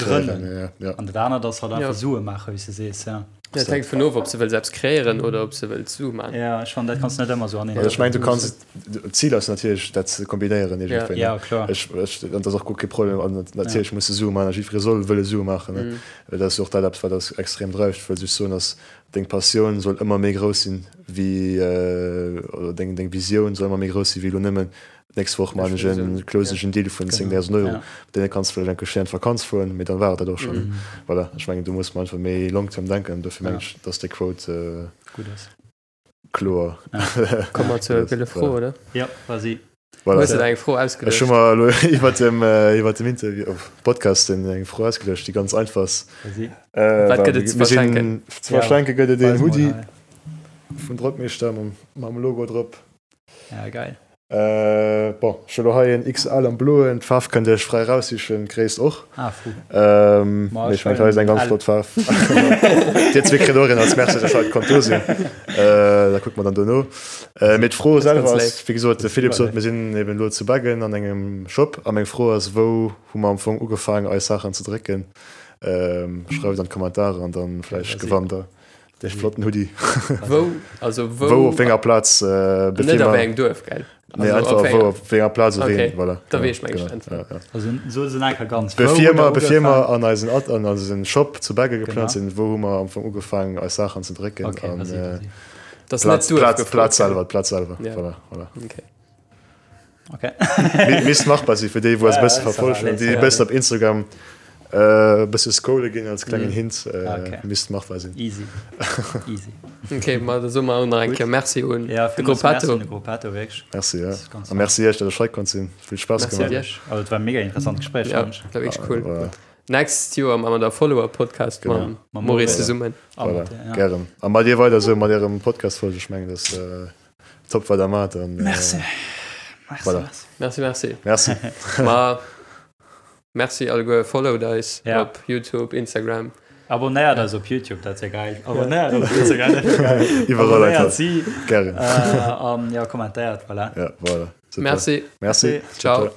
grënnen an dat anert ass halt einfach Sue maachen, wéi s de sees, jo. Dat hänkt vun of, ob s de wëlls eppes kreéieren oder ob s de wëlls Sue maachen. Jo, ech fannen, dat kanns de net ëmmer esou aneen. Ech mengen, du kanns, d'Zil ass natierlech, dat ze kombinéieren iergendwéi, ne? Jo, kloer. Ech, ech, an dat ass och guer kee Problem. An natierlech muss de Sue maachen a jiddweree soll wëlle Sue maachen, ne? Well dat ass jo och dat eppes, wat eis extrem dreift. Ech wëll just soen, dass deng Passioun soll ëmmer méi grouss sinn wéi, oder deng, deng Visioun soll ëmmer méi grouss sinn wéi elo nëmmen D'nächst Woch maan ech en, close ech en Deal vun 10.000 Euro. Mat deene kanns de vläicht eng Kéier schéin an d'Vakanz fueren, mee dann war et dat och schonn. Voilà, ech mengen do muss mer einfach méi long term denken. Dofir mengen ech, dass déi Quote gutt ass. Kloer. Komme mer zur gëlle Fro, oder? Jo, vas-y. Voilà. Hues de der eng Fro ausgeduecht? Ech hu mer elo iwwert dem, iwwert dem Interview, Podcast eng Fro ausgeduecht, déi ganz einfach ass. Vas-y. Wat gëtt et ze verschenken? Ze verschenke gëtt et een Hoodie vun Drockmeeschter mam Logo drop. Ja, geil. Äh, bon, ech hu lo hei en XL am bloen, d'Faarf kënnt Dir iech fräi raussichen, d'Gréisst och. Ah, fou. Ähm, Ma mee ech ech mengen, hei ass eng ganz L. flott Faarf. Dir zwee kritt och een als Merci, dass Dir haut konnt do sinn. Äh, da kucke mer dann dono. Äh, mee d'Fro Das ist selwer ganz ass, léif. wéi gesot, de Philippe Super sot, mir sinn eben elo zu Beggen an engem Shop a meng Fro ass, wou hu mer am Fong ugefaangen eis Saachen ze drécken? Ähm, schreift an d'Kommentarer an dann vläicht Vas-y. gewannt der. Dee flotten Hoodie. Wou? Also wou? Wou op wénger Plaz? Äh, Net op engem Duerf, gell? Nee, also einfach wou op wénger Plaz op okay. een, voilà. Da weess ech meng genau. Ja, ja. Also so se enker ganz. Bevir mer, bevir mer an eisen Ad, an eisen Shop zu Begge geplant sinn, wou hu mer am Fong ugefaangen eis Saachen ze drécken okay, an vas-y, vas-y. Das Plaz, net Plaz, Plaz selwer, d'Plaz selwer. Ja. Voilà, voilà. Okay. Okay. Misst machbar sinn fir déi wou eis Ja, bësse ja, verfolgen an déi ja. bëssen op Instagram äh, bësse scrolle ginn als klengen Mhm. Hint äh, Okay. misst machbar sinn. Easy. Easy. Okay, ma da soe mer och nach eng Gutt. Kéier Merci un Ja, de villmools Merci Gruppetto. un de Gruppetto, wierklech. Merci ja. Das ist ganz A merci iech, dat ech hei konnt sinn. Vill Spaass Merci gemaach. iech. Also, et war e mega interessant Gespréich, Ja, fand ech. war wierklech cool. Voilà. Next Joer maache mer da Follower-Podcast Genau. mam Mam Maurice Maurice. zesummen. A Voilà. mat, ja. Gären. A mat dir weider esou mat ärem Podcast-Folge. Ech mengen, dat äh, Top wat der mat an äh, Merci. Merci, Voilà. merci. Merci, merci. Merci. Ma merci alleguer, followt eis Ja. op YouTube, Instagram. Abonnéiert eis op YouTube, dat wär geil. Abonnéiert eis op Instagram, dat wär geil. Iwwerall Abonnéiert einfach. si. Gären. Äh, an ja, kommentéiert, voilà. Ja, voilà. Super. Merci. Merci. Ciao.